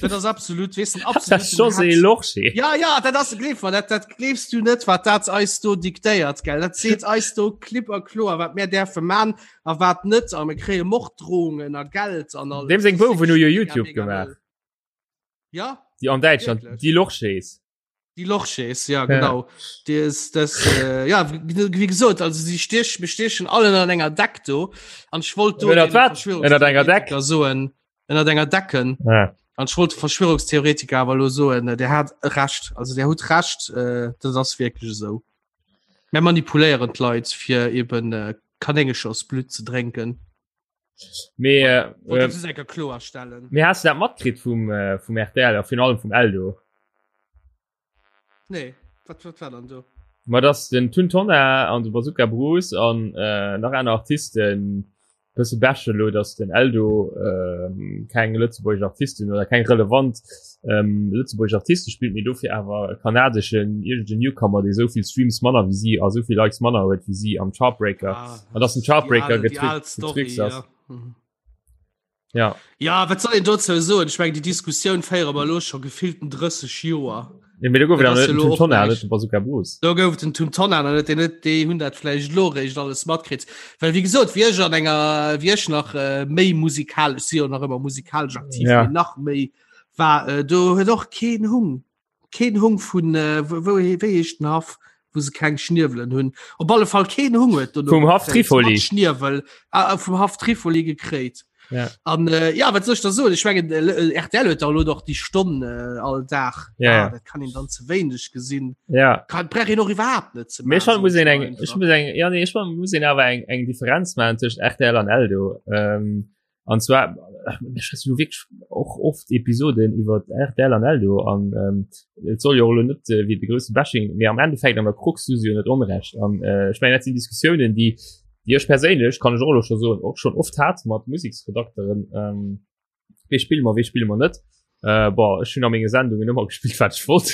Dat ass absolut weess den Das absoluten José Hetz. Lorsché. Ja ja, dat ass gleef mer, dat dat gleefs du net, wat dat eis do diktéiert gell. Dat seet eis do klipp a kloer, wat mär däerfe man a wat net a mir kréie Morddrohungen a Geld an alles. Deem seng Das ass Bouwen hu jo wirklich mega, YouTube mega gemaach. wëll. Ja, Déi an Däitschland, Wirklich? die Lorschés. Die Lochschäs, ja genau. Die ist, das, äh, ja, wie, wie gesagt, also sie stech, wir stechen alle an enger Deck do. An ich wollte do Ënnert den wat? Ënnert enger Deck? Verschwörungstheoretiker soen, ënnert enger Decken. Ja. An ich wollte Verschwörungstheoretiker aber lo soen, äh, der hat recht, also der huet recht, äh, das ass wirklich so. Mir manipuléieren d'Leit fir eben äh, Kanéngechersblut ze drénken. Mee, äh, Wollte äh, das enker kloerstellen. mee hast du dat matkritt vum, äh, vum RTL a virun allem vum Eldo? Nee, wat, wat war dann do? Ma dass den Tun Tonnar an de Bazooka Bruce an äh, nach aner Artisten bësse bashen elo, dass den Eldo ähm, keng lëtzebuergesch Artisten oder keng relevant ähm, lëtzebuergesch Artiste spillt, mee dofir awer e kanadeschen iergende Newcomer, dee souvill Streams manner wéi si a souvill Likes manner huet wéi si am Chartbreaker. Ah, An dass den Chartbreaker die al- die al Story, getrickst ass. ja. Mhm. Ja. Ja, wat soll een dozou soen? Ech mengen, déi Diskussioun féiere mer elo scho gefillten 30 Joer. Nee, mee do gouf et Dat awer ass net den jo Tun elo och Tonnar, net näischt. den Bazooka Bruce. Do gouf et den Tun Tonnar nach net, deen huet, déi hunn dat vläicht elo eréischt alles matkritt. Well wéi gesot, wéi ech an enger, wéi ech nach äh, méi musikalesch, si jo nach ëmmer musikalesch aktiv, Ja. mee nach méi war, äh, do huet och keen Hung, keen Hung vun, äh, wou, wou, wéi heescht den Haff, wou se keng Schniewelen hunn. Op alle Fall keen Hung huet dono Vum Haff gekréit, Trifoli. mat Schniewel, ah, ah, vum Haff Trifoli gekréit. Ja. An äh, ja, wat soll ich da soen? Ich mengen äh, RTL huet da elo doch déi Stonn äh, all Dag. Ja, ah, ja. Dat kann een dann ze wéineg gesinn. Ja. Kann brauch een och iwwerhaapt net ze Mee maachen, schon muss soen een eng, einfach. ech muss eng, ja, nee, ech muss een awer eng, eng Differenz maachen tëscht RTL an Eldo. Ähm, an zwar, ech schwätze lo wierklech och oft Episoden iwwer RTL an Eldo an ähm, et soll jo och elo net äh, wéi de grousse Bashing, mee am Endeffekt an der Krux hu se jo net Onrecht. An äh, ech mengen, dat sinn Diskussiounen, déi, déi ech perséinlech, kann ech och elo scho soen, och schonn oft hat mat Museksredakteren. Ähm, wéi spille mer, wéi spille mer net. Äh, boah, ech hunn a menge Sendungen ëmmer gespillt, wat ech wollt.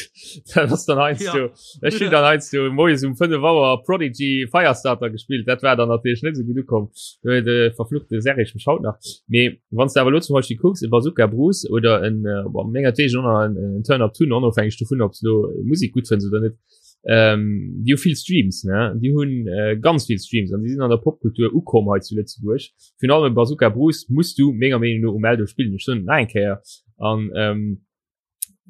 Dat ass dann heiansdo, ja. ech hunn dann heiansdo moies um 5 Auer Prodigy Firestarter gespillt. Dat war dann natierlech net esou gutt ukomm. Do huet de verfluchte Serge mech haut nach. Mee wann s de awer elo zum Beispill kucks, e Bazooka Bruce oder en, äh, boah, mengertwegen och nach en, en Turn Up Tun, onofhängeg dovun, ob s lo Musek gutt fënns oder net, ähm, déi hu vill Streams, ne? Déi hunn äh, ganz vill Streams an déi sinn an der Popkultur ukomm hei zu Lëtzebuerg. Virun allem Bazooka Bruce muss du menger Meenung no um Eldo spillen. Ech soen et nach eng Kéier. An ähm,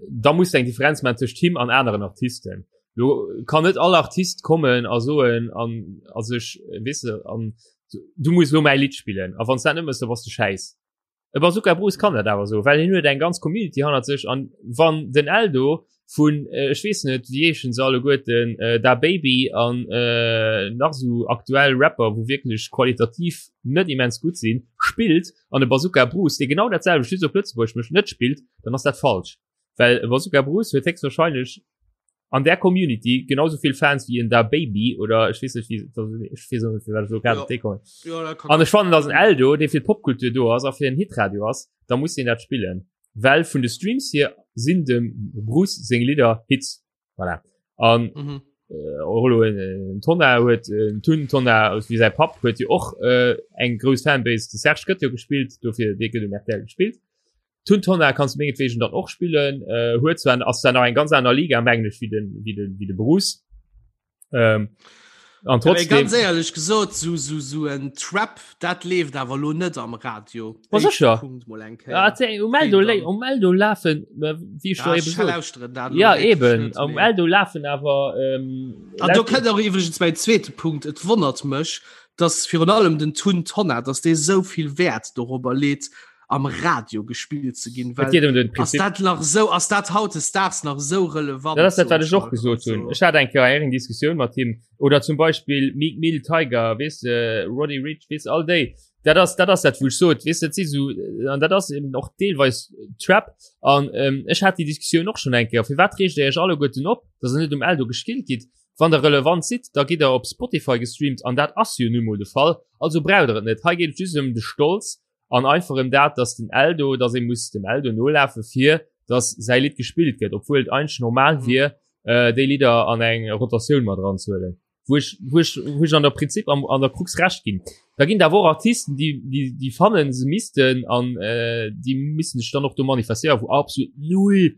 da muss du eng Differenz maachen tëscht him an aneren Artisten. Lo kann net all Artist kommen a soen an a sech weess de an du muss lo mäi Lidd spillen a wann s dat net mëss, da bass du schäiss. E Bazooka Bruce kann dat awer soen, well hien huet eng ganz Community hannert sech an wann den Eldo vun äh, ech weess net wéi heeschen se alleguerten äh, Da Baby an äh, nach sou aktuell Rapper wou wierklech qualitativ net immens gutt sinn spillt an e Bazooka Bruce dee genau dat selwecht just op Lëtzebuergesch mécht net spillt, dann ass dat falsch. Well e Bazooka Bruce huet héchstwahrscheinlech an der Community genauso vill Fans wéi en Da Baby oder ech weess net wéi ech weess och net firwat ech elo grad op dee kommen. Ja, dat kann An ech fannen dass en Eldo dee fir d'Popkultur do ass a fir en Hitradio ass, da muss deen dat spillen. Well vun de Streams hier sinn dem Bruce seng Lidder Hits. Voilà. An Mhm. äh, och elo en, en Tonnar huet en Tun Tonnar wéi säi Papp huet jo och äh, eng grouss Fanbase. De Serge gëtt jo gespillt, dofir dee gëtt um RTL gespillt. Tun Tonna kanns du mengetwegen dann och spillen äh, huet zwar ass da nach eng ganz aner Liga mengen ech wéi den wéi den wéi de Bruce. Ähm, an trotzdem ganz éierlech gesot so so so en Trap dat leeft awer lo net am Radio. Ma sécher. Punkt mol eng Kéier. Ja, um Eldo le um Eldo lafen äh, wéi ech do Ja, eben ech sot. lauschteren dat lo Ja wierklech eben net, am mee- Eldo lafen awer ähm, An do kënnt och iwwregens mäin zweete Punkt. Et wonnert mech, dass virun allem den Tun Tonnar, dass dee sou vill Wäert dorobber leet, am Radio gespillt ze ginn. Et geet ëm den Ass Prinzip. dat nach sou, ass dat hautdesdaags nach sou relevant? Dat ass dat, wat soen ech och mal. gesot hunn. Also, Ech hat eng Kéier eng Diskussioun mat him. Oder zum Beispill Meek Mill, Tyga, weess de, Roddy Ricch, weess all déi. Dat ass, dat ass dat, wou ech sot, weess de, dat si sou, an dat ass eben och deelweis Trap. An ähm, ech hat déi Diskussioun och schonn eng Kéier. Firwat reegt Dir Iech alleguerten op, dass Der net um Eldo gespillt gitt? Wann Der relevant sidd, da gitt Der op Spotify gestreamt an dat ass jo nu mol de Fall. Also braucht Der et net. Hei geet et just ëm de Stolz an einfach ëm dat, dass den Eldo, dass ee muss dem Eldo nolafe fir dass säi Lidd gespillt gëtt, obwuel et eigentlech normal Mhm. wier, äh, déi Lidder an eng Rotatioun mat eranzehuelen. Wou ech, wou ech, wou ech an der Prinzip am, an der Krux recht ginn. Da ginn et awer och Artisten, déi, déi, déi fannen, se missten an äh, déi missten sech dann och do manifestéieren, wou absolut null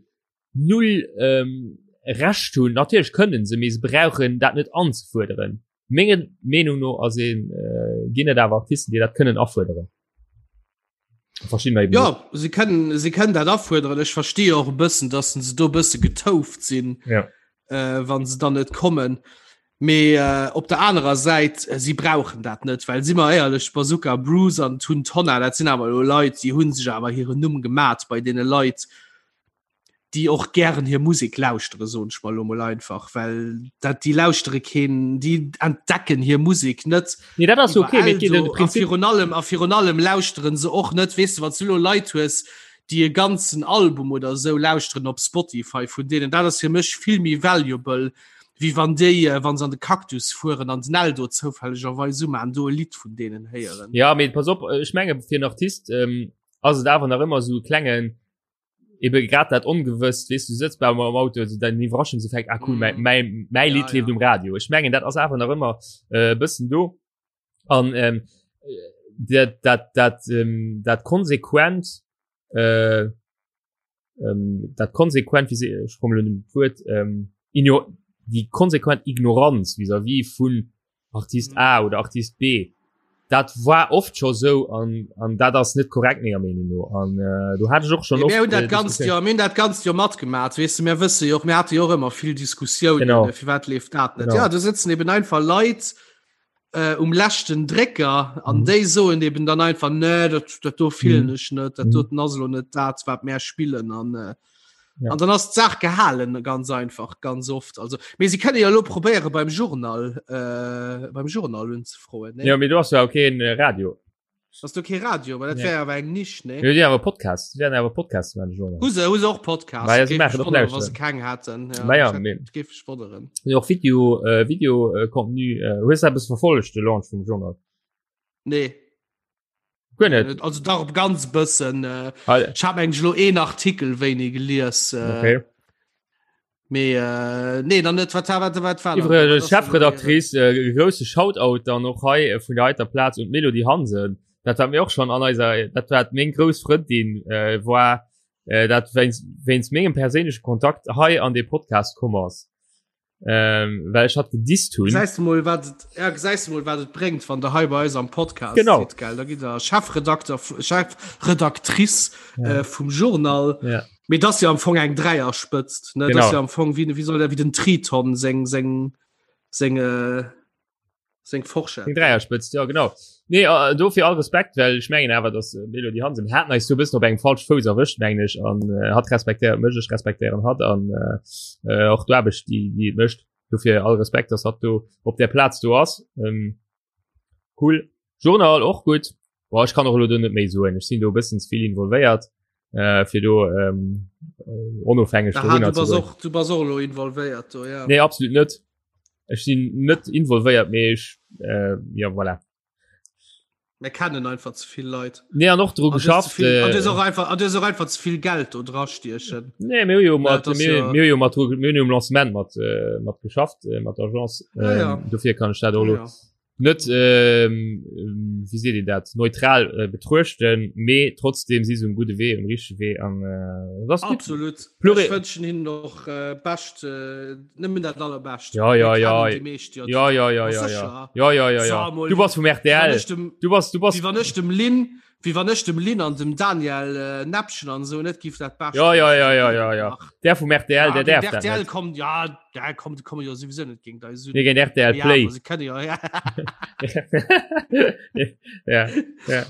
null ähm, Recht hunn. Natierlech kënnen se, mee se brauchen dat net anzefuerderen. Menge Meenung no ass een äh, ginn et awer Artisten, déi dat kënnen afuerderen. Verschieden eben Ja, se kënnen, se kënnen dat afuerderen. Ech verstehe och e bëssen, dass se do e bësse getouft sinn, Ja. äh, wann se dann net kommen. Mee äh, op der anerer Säit, äh, si brauchen dat net, well si mer éierlech, Bazooka Bruce an Tun Tonna, dat sinn awer elo Leit, déi hunn sech awer hiren Numm gemat bei deene Leit, déi och gären hir Musek lauschtere soen ech mal lo mol einfach, well dat déi lauschtere keen, déi entdecken hir Musek net. Nee, dat ass okay, mee et geet ëm de A Prinzip. virun allem a virun allem lauschteren se och net, weess de, wann s du lo Leit hues, déi e ganzen Album oder esou lauschteren op Spotify vun deenen, dat ass fir mech vill méi valuable, wéi wann déi, äh, wann se an de Cactus fueren an den Eldo zoufällegerweis umaan, do e Lidd vun deenen héieren. Ja, mee pass op, ech menge fir en Artist ähm, ass et awer nach ëmmer esou e klengen, eben grad dat ongewësst weess du sëtz bei am Auto also dein Iwwerraschungseffekt ah cool mm. mein, mein Lied ja, lebt ja. um Radio ich mengen dat ass awer nach ëmmer äh, bëssen do an ähm, dat dat dat ähm, dat konsequent äh, ähm, dat konsequent wie se ich komme dem Wuert ähm, die konsequent Ignoranz vis-à-vis vun Artist mhm. A oder Artist B dat war oft scho sou an an dat ass net korrekt menger Meenung no an äh, du hat ech och schon oft, äh, dat ganz Joer mir dat ganz Joer matgemaat weess de mir wësse jo och mir hate jo och ëmmer vill Diskussiounen firwat leeft dat net ja do sëtzen eben einfach Leit äh, um leschten Drécker an mhm. déi soen eben dann einfach nee dat, dat do fillen mhm. ech net dat mhm. doten ass lo net dat wat mär spillen an äh, Ja. An dann ass d'Saach gehalen ganz einfach ganz oft also mee sie kënne ja lo probéiere beim Journal äh, beim Journal unzefroen ne? Ja mee du hast ja okay en äh, Radio. Hast du ke Radio weil dat Nee. wär awer eng Nisch ne Ja, die awer Podcast, die werden awer Podcast man Journal. Hu se hu se och Podcast Ma ja, sie Géif machen mech och wonneren, wa lauschteren. se keng haten ja, Ma ja, ich hätt- mee- géif mech wonneren. Ja, och Video äh, Video äh, Contenu äh, hues du eppes verfollegt de Launch vum Journal? Nee Guer net. Also dach op ganz bëssen äh, Ah, ich hab eigentlich lo een Artikel wéini gelies äh, okay. mee äh, nee dann net wat wat wat war Iwwregens Chefredaktrice äh, grousse Shoutout dann och hei äh, vun der heiter Plaz un d'Melody Hansen. Dat hat mir och schon an eiser dat war meng grouss Frëndin äh, war äh, dat wéinst wéinst mengem perséinleche Kontakt hei an de Podcast komm ass. Ähm, well ech hat gedisst hunn. Gesäis du mol wat et ja, gesäis du mol wat et bréngt, wann der hei bei eis am Podcast Genau. sidd, gell? Da gitt der Chefredakter Chefredaktrice Ja. äh, vum Journal. Ja. Mee dat ass jo am Fong eng Dräierspëtzt, ne? Dat Genau. ass jo am Fong wéi wéi soll der wéi den Triton seng seng seng äh, seng Forschett. Eng Dräierspëtzt, ja genau. Nee, äh, dofir all Respekt, well ech mengen awer, dass äh, Melody Hansen hat eis so bëssen op engem falsch Fouss erwëscht, mengen ech, an äh, hat respektéiert mech, ech respektéieren hat an äh, äh, och d'Aarbecht, déi déi et mécht. Dofir all Respekt, dass hat do op der Plaz do ass. Ähm, cool. Journal och gutt. Boah, ech kann och elo do net méi soen. Ech sinn do e bëssen ze vill involvéiert, äh, fir do ähm, äh, onofhängeg Aha, dorunner du ze bass goen. och du bass och elo involvéiert do, ja. Nee, absolut net. Ech sinn net involvéiert, mee ech äh, ja voilà. Mir kennen einfach ze vill Leit. Nee, an och dru An du hues ze geschafft. vill- an du hues Äh, och einfach an du hues och einfach ze vill Geld do dra stiechen. nee, mir hu jo mat dat ass mir ja- mir hu jo mat mir hunn jo um Lancement mat äh, mat geschafft äh, mat der Agence. Ja, ja. Ähm, dofir kann ech dat och Ja, lo ja. Net ähm, wéi seet een dat neutral äh, betruechten, mee trotzdem si se um gudde Wee, um richtege Wee an äh, das gut. Absolut. Pluri Ech wënschen hinnen och äh, bescht äh, nëmmen dat allerbescht. Ja ja ja ja ja ja ja ja ja ja ja ja Du bass vum RTL. Du bass du bass Wéi wann ech dem Lynn Wéi wann ech dem Lynn an dem Daniel äh, Näppchen an so net giff dat bescht. Ja ja ja ja ja ja. Der vum RTL, ja, der därf dat RTL kommt ja, der kommt komme jo sowieso net géint eis. Nee, géint RTL Play. Ja, se kënne jo ja. ja, ja.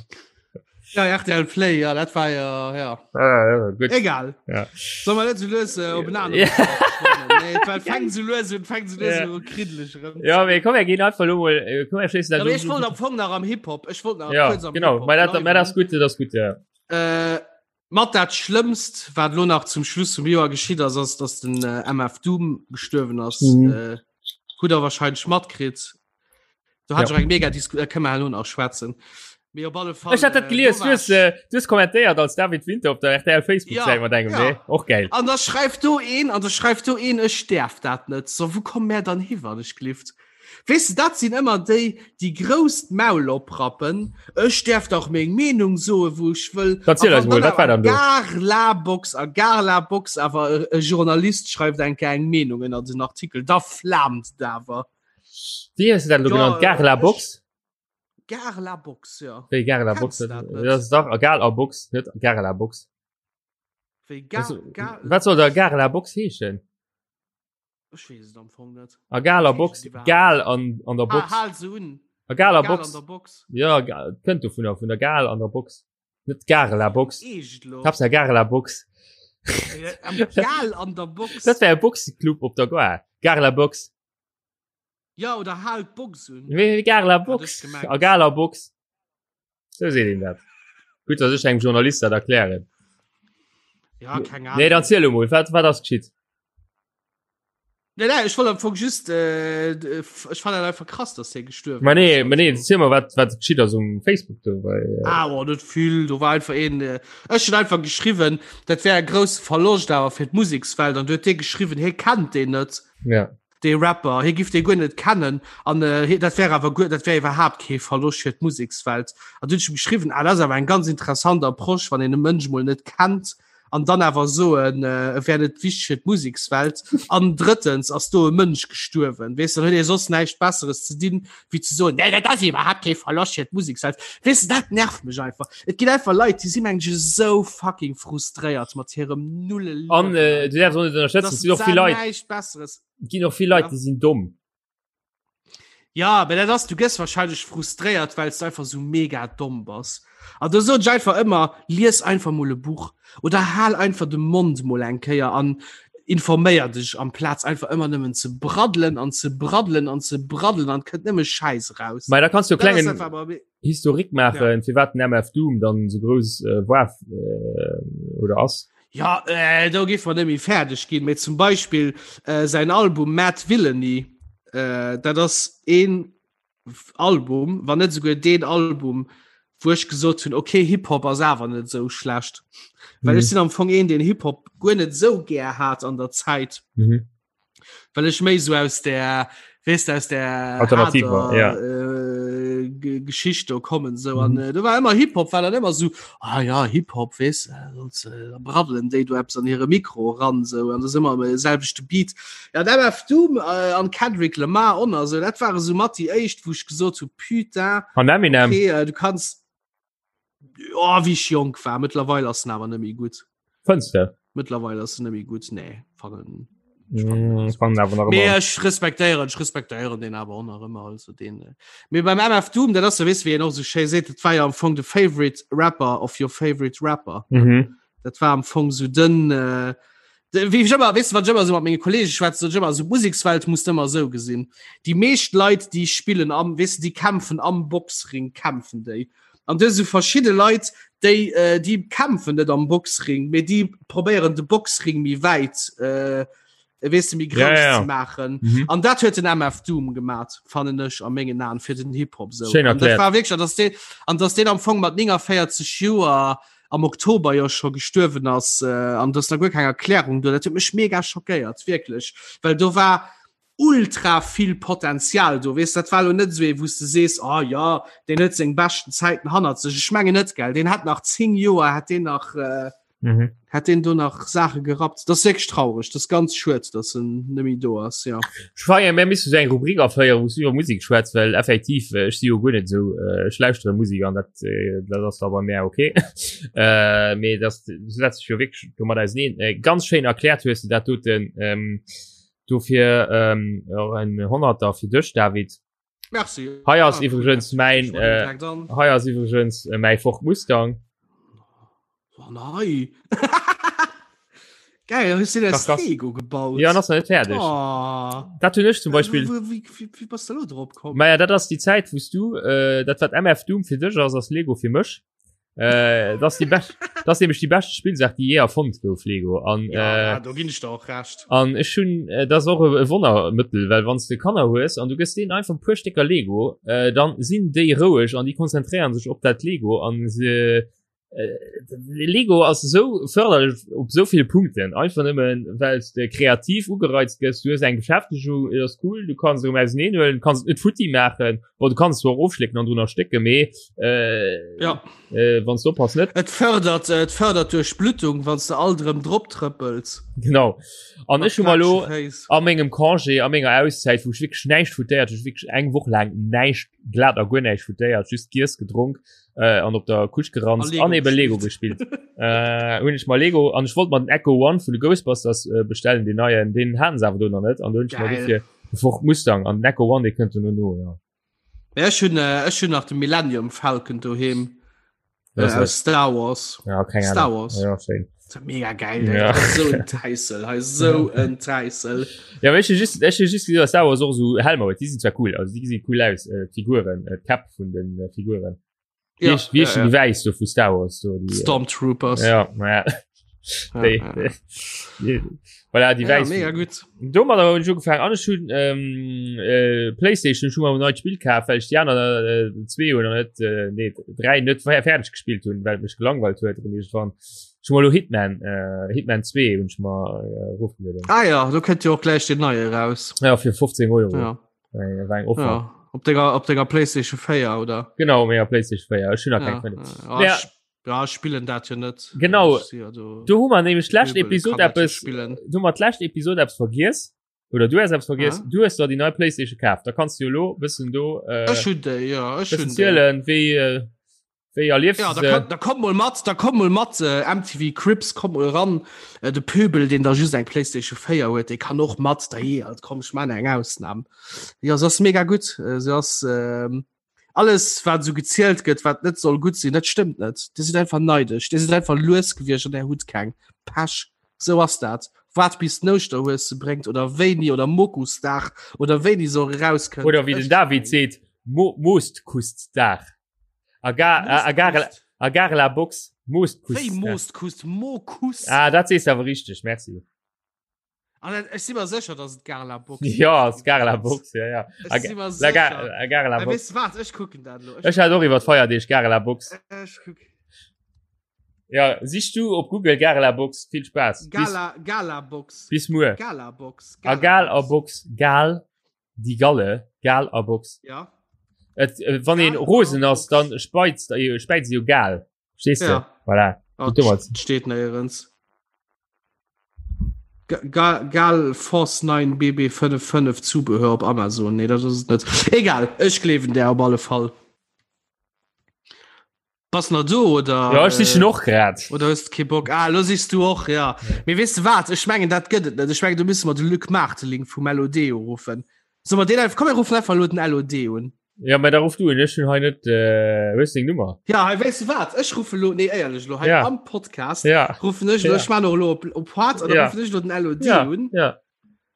Ja, RTL Play, ja, dat war ja, ja. Ah, ja gut. Egal. Ja. Soll man net so lues äh, op en aneren Ja. Nee, well fängt so lues un, fängt so lues Ja. un kriddelig erëm. Ja, mee komm, mir ginn einfach lo mol, äh, komm, mir schléissen Ja, dat mee lo- ech wollt am Fong nach am Hip-Hop. Ech wollt nach Ja, kuerz am genau. Hip-Hop Mä dat, mä bleiwen. dat ass gutt, dat ass gutt, ja. Äh, mat dat Schlëmmst, wat lo nach zum Schluss vum Joer geschitt ass, ass, dass den äh, MF Doom gestuerwen ass. Mhm. Äh, hutt der wahrscheinlech matkritt. Do hat Ja. ech eng mega Disku äh, kënne mer herno nach schwätzen. Mee op alle Fall. Ech hat dat äh, gelies, do du war hues, äh, du hues kommentéiert als David Winter op der RTL Facebook-Säit Ja, mat engem, ja. nee? Och geil. An da schreift do een, an da schreift do een, ech däerf dat net. So, wou komme mär dann hi, wann ech glift? Weess de, dat sinn ëmmer déi, déi grouss d'Maul oprappen, ech däerf dach meng Meenung soen, wou ech wëll. Erziel A eis wann mol, dann wat war awer dann do? Gar la Box a gar la Box awer e Journalist schreift eng Kéier eng Meenung ënner den Artikel, da flaamt et awer. Wéi hues de dat elo Ja, genannt? Gare la ech- Box? Gare la Box, ja. Wéi Gare la Box? Kennst du dat net? Dat ass dach a Gal a Box, net Gare la Box. Wéi Gar, Was- Gar, Wat soll da Gare la Box heeschen? Ech weess et am Fong net. A Gal a Box, Heeschen déi überhaupt? Gal an, an der Ah, Box. hal se un. A Gal a Gal Box. an der Box. Ja, Ga- kënnt dovunner, vun der Gal an der Box. Net Gare la Box. Eescht lo? Hab's ja Gare la Box. Am Gal an der Box. Dat wär e Boxeclub op der Gare. Gare la Box. Ja, oder hal d'Box un. Wéi Gare la Hat Box. ech gemengt. A Gal a Box. Sou seet een dat. Gutt, dass ech engem Journalist dat erklären. Ja, keng Ahnung. Nee, dann ziel emol, wat, wat ass geschitt? Nee, nee, ech wollt am Fong just, äh, ech fand dat einfach krass, dass hie gestuerwen Ma nee, ass. ma nee, ziel mal, wat, wat geschitt ass um Facebook do, well, äh, Ah, oh, net vill, do war einfach een, äh, ech hunn einfach geschriwwen, dat wär e grousse Verloscht awer fir d'Musekswelt, an du huet dee geschriwwen, hie kennt deen net. ja. dee Rapper, hie giff dee guer net kennen an äh, dat wär awer guer, dat wär iwwerhaapt kee Verloscht fir d'Musekswelt. An du hunn ech em geschriwwen, ah, dat ass awer eng ganz interessant Approche, wann een e Mënsch mol net kennt an dann awer soen, äh, e wär net wichteg fir d'Musekswelt. An drëttens ass do e Mënsch gestuerwen, weess, dann huet ee soss näischt Besseres ze dinn, wéi ze soen, nee, dat ass iwwerhaapt kee Verloscht fir d'Musekswelt. Weess de, dat nervt mech einfach. Et ginn einfach Leit, déi si mengen ech esou fucking frustréiert mat hirem nulle Liewen. An äh, du därfs och net ënnerschätzen, dass et sinn och se vill Leit, näischt Besseres. et ginn och vill Leit, Ja. déi sinn domm. Ja, aber dat ass, du gëss wahrscheinlech frustréiert, well s du einfach so mega domm bass. An do soen ech einfach ëmmer, lies einfach mol e Buch oder hal einfach de Mond mol eng Kéier an informéier dech, amplaz einfach ëmmer nëmmen ze braddelen an ze braddelen an ze braddelen an et kënnt nëmme Schäiss eraus. Mä da kanns du e Dat ass klengen einfach awer Historique maachen, ja. firwat den MF Doom dann sou grouss äh, war äh, oder ass. Ja, äh, do géif mer net méi fäerdeg ginn, mee zum Beispill äh, säin Album Mad Villainy, äh, dat ass een Album, wann net souguer deen Album, wou ech gesot hunn, okay, Hip-Hop ass awer net sou schlecht. Well Mhm. ech sinn am Fong een, deen Hip-Hop guer net sou gär hat an der Zäit. Mhm. Well ech méi sou aus der, weess de, aus der Alternativ war, harter, ja. äh, Ge- Geschicht do kommen sou an Mhm. äh, do war ëmmer Hip-Hop war dann ëmmer sou ah ja Hip-Hop weess äh, sonst, äh, da braddelen déi do eppes an hire Mikro ran sou an das ëmmer am selwechte Beat. Ja an MF Doom äh, an Kendrick Lamar on also dat ware sou mat déi éischt wou ech gesot hu putain An Eminem. okay, äh, du kanns oh, wéi ech jonk war mëttlerweil ass en awer net méi gutt. Fënns de? Mëttlerweil ass en net méi gutt nee fannen Mm, ech fannen awer nach Mee ëmmer. ech respektéieren ech respektéieren den awer och nach ëmmer also den äh. Mee beim MF Doom dat ass jo weess wéi en och sou schéi seet dat war jo am Fong de favorite rapper of your favorite rapper Mhm. dat war am Fong sou den äh, de, wéi ech ëmmer weess de wann ech ëmmer sou mat menge Kollege schwätze sot ech ëmmer sou d'Musekswelt muss de ëmmer sou gesinn déi meescht Leit déi spillen am weess de déi kämpfen am Boxring kämpfen déi An du hues esou verschidde Leit, déi, äh, déi kämpfen net am Boxring, mee déi probéieren de Boxring méi wäit, äh, weess de, méi grouss Ja, ja. ze maachen. Mhm. An dat huet den MF Doom gemat, fannen ech a mengen Aen fir den Hip-Hop sou. Schéin An dat erkläert. war wierklech, an dass deen, an dass deen am Fong mat 49 Joer am Oktober jo scho gestuerwen ass, äh, an dass da guer keng Erklärung do, dat huet mech mega schockéiert, wierklech. Well do war. ultra vill Potenzial do weess dat war lo net esou ee wou s de sees ah ja deen huet seng beschten Zäiten hannert sech ech mengen net gell deen hat nach 10 Joer hat deen nach äh, mhm. hat den do nach Sache gerappt das wierklech traurig das ganz schued dass en nemmi do ass ja Schweier mir misst eng Rubrik aféieren wou iwwer Musik schwätz well effektiv äh, ech si jo guer net sou äh, ech lauschtere Musik an dat äh, dat ass da bei mär okay äh, mee das setzt sech jo wierklech domat auseneen äh, ganz schéin erkläert hues du dat doten ähm, dofir ähm, och en Honnerter fir dech David Merci. Hei ass ah, iwwregens mäin äh, hei ass iwwregens äh, mäi Ford Mustang. Oh, nei. Geil, hues du das Lego gebaut? Ja, das net fertig. Oh. Dat hunn ech zum Beispiel. Wie, wie, wie bist du drop komm? Maja, dat ass die Zäit, wous du äh, dat wat MF Doom fir dech ass, ass Lego fir mech. Äh, das die best, das nämlich die beste Spielsaach die je erfonnt gouf Lego an ja, äh, do ginn ich der och recht an ech hun äh, das och e Wonnermëttel well wann du Kanner hues an du gëss deen einfach puer Stécker Lego äh, dann sinn déi roueg an déi konzentréieren sech op dat Lego an se äh, Lego ass sou förderlech op sou ville Punkten einfach nëmmen well de kreativ ugereizt gëss du hues eng Beschäftegung et ass cool du kanns erëm auseneen huelen kanns et net futti maachen Bon, du kannst zwar ofschlécken an drunner stécke mee äh, ja. äh, wann du oppass net. Et fördert äh, et fördert Duerchblutung, wann du alt erëm drop trëppels. Genau. An ech hu mal lo a mengem Congé a menger Auszäit, wou ech wierklech näischt futéiert, ech wierklech eng Woch laang näischt glat a guer näischt futéiert, just giess, gedronk äh, an op der Couch geranzt an eben Lego gespillt. äh, hunn ech mal Lego an ech wollt mal den Echo One vun de Ghostbusters äh, bestellen, den neien, den haten se awer do nach net an do hunn ech mal dofir Ford Mustang an den Echo One, dee kënnt duerno no, ja. Ja, ech hunn äh, ech hunn nach de Millennium Falcon doheem äh, aus Star Wars. Ja, keng Ahnung. Star Wars. Ja, schéin. Das ist mega geil. Ja. So en Täissel, hei so en Täissel. Ja, aber ech hu just, ech hu just gesinn, dass Star Wars och so Helmer huet. Déi sinn zwar cool, also déi gesinn cool aus, äh, d'Figuren, äh, d'Käpp vun den äh, Figuren. Ja, Wie, wie ja, ja, ja. die Wäiss do vu Star Wars do, die, äh, Stormtroopers. Ja, ja. Ja, Déi, ja. déi, déi, voilà, die Ja, Wäiss. mega gut. Domadder hunn ech ugefaangen an ech hunn ähm, äh, Playstation schon mal neit Spiel kaf, well ech déi aner äh, zwee oder net äh, nee, dräi net fer- fäerdeg gespillt hunn, well et mech gelangweilt huet erëm iergendwann. Ech hu mal lo Hitman äh, Hitman 2 hunn ech mer äh, erofgelueden. Ah ja, do kënnt jo och gläich den neie raus. Ja, fir 15 Euro. Ja. Äh, war eng Offer. Ja. Op denger, op denger Playstation 4 oder? Genau, menger Playstation 4. Ech hunn nach Ja, keng Fënnef. ja, Ja. ich, ja, ich spillen dat jo net. Genau. Ich si ja do, Do hu mer nämlech d'lescht Pöbel Episod kann dat jo eppes spillen. du mat d'lescht Episod eppes vergiess oder du has eppes vergiess Ah. du hues der déi nei Playstation kaf da kannst du jo lo bëssen do äh, Ech hunn déi, ja, ech bëssen hunn déi. zielen wéi äh, wéi erliefs Ja, du da, se kann, da komm mol mat, da komm mol mat, äh, MTV Cribs, komm mol ran. Äh, de Pöbel, deen da just eng Playstation 4 huet, dee kann och mat, da je, alt komm, ech man eng Ausnam. Ja, se ass mega gutt. Äh, se ass, ähm, alles wat sou gezielt gëtt, wat net soll gutt sinn, dat stëmmt net. Dir sidd einfach neidesch, Dir sidd einfach lues gewiescht an Där hutt keng. Pech, sou ass dat. Waart bis den Ouschterhues se bréngt oder wéini oder Mokusdag oder wéini se och erauskënnt. oder wéi den Ech David seet Mo Moostkustdag a gar a, a gar a gar la Box Moostkust Wéi Moostkust? Mokus? Ah, dat sees awer richteg, merci. An dat, ech si mer sécher, dass et Gala Box Ja, ass Gala Box, ja, ja. Ech si mer La Ga- sécher. la Gala Äh, Box. Weess du wat, ech kucken dat elo. Ech hat och iwwer d'Feierdeeg Gala Box. Ech kuck. Ja, sich du op Google Gala Box, vill Spaass. Bis, Gala, Gala Box. bis muer. Gala Box. A Gal a Box, Gal, déi Galle, Gal a Box. Ja. Et, äh, wann een Gal a rosen ass, Box. dann speizt, äh, späizt se jo Gal. Verstehst du? Ja. Voilà. Oh, Domat. steet néierens. Ga Gal Force 9 BB55 Zubehör op Amazon. Nee, dat ass et net. Egal, ech gleewen där op alle Fall. Bass nach do oder? Ja, ech sichen och grad. Oder hues de kee Bock? Ah, lo sichs du och, ja. Mee weess de wat? Ech mengen, dat gëtt et net. Ech mengen, do müsse mer de Luc Maarteling vum LOD uruffen. Solle mer deen einfach, komm mir ruffen einfach elo den LOD un. Ja, mä da ruff du un, ech hunn hei net, äh, hues deng Nummer? Ja, hei, weess de wat? Ech ruffe lo, nee, éierlech elo, hei Ja. am Podcast Ja, ruffen ech elo, Ja. ech man och elo op, op Hart, an da Ja. ruffen ech elo den LOD ja, un. ja.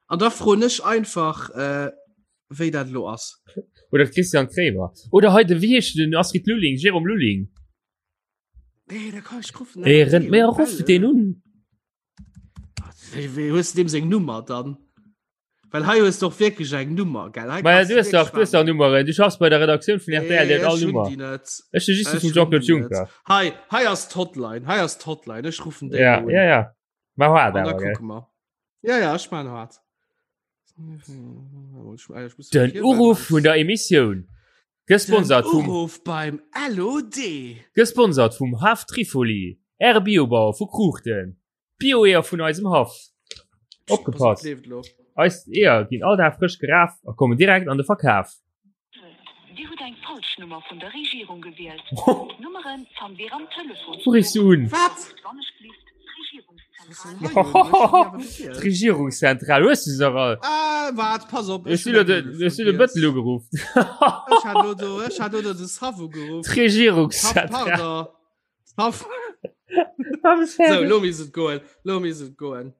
An da froen ech einfach, äh, wéi dat elo ass. Oder Christian Kremer. Oder hei de, wéi heescht den Astrid Lulling, Jérôme Lulling. Nee, da kann ech ruffen. Ey, rennt mir ruff den un. Wéi, wéi hues du deem seng Nummer dann? Well hei hues du och wierklech eng Nummer, gell? Hei Ma ja, kannst du hues wierklech dach, du hues dach Nummeren. Du schaffs bei der Redaktioun vun RTL, déi huet all ech hunn Nummer. déi net. Ech hu just déi Ech vum hunn Jean-Claude déi net. Juncker. Hei, hei ass d'Hotline, hei ass d'Hotline. Ech ruffen déi Ja, elo un. ja, ja. Ma hart An da awer, gell? kucke mer. Ja, ja, ech man hart. Den Uruff vun der Emissioun. Gesponsert vum Uruff beim LOD. Gesponsert vum Haff Trifoli, Äre Biobauer vu Kruuchten. Bio-Eeër vun eisem Haff. Opgepasst! Eis Eeër ginn all Dag frësch geraf a kommen direkt an de Verkaf. Dir hutt eng falsch Nummer vun der Regierung gewielt. D'Nummere fannt Dir am Telefonsbuch. Wou riffs du un? Wat? Wannechgelift d'Regierungszentral. D'Regierungszentral, hues du se dach all? Ah, waart, pass op. Ech hunn de Bëttel ugeruff. Ech hat lo do, ech hat lo do de Sav ugeruff. D'Regierungszentral. Pardon. So, lo misst et goen. Lo misst et goen.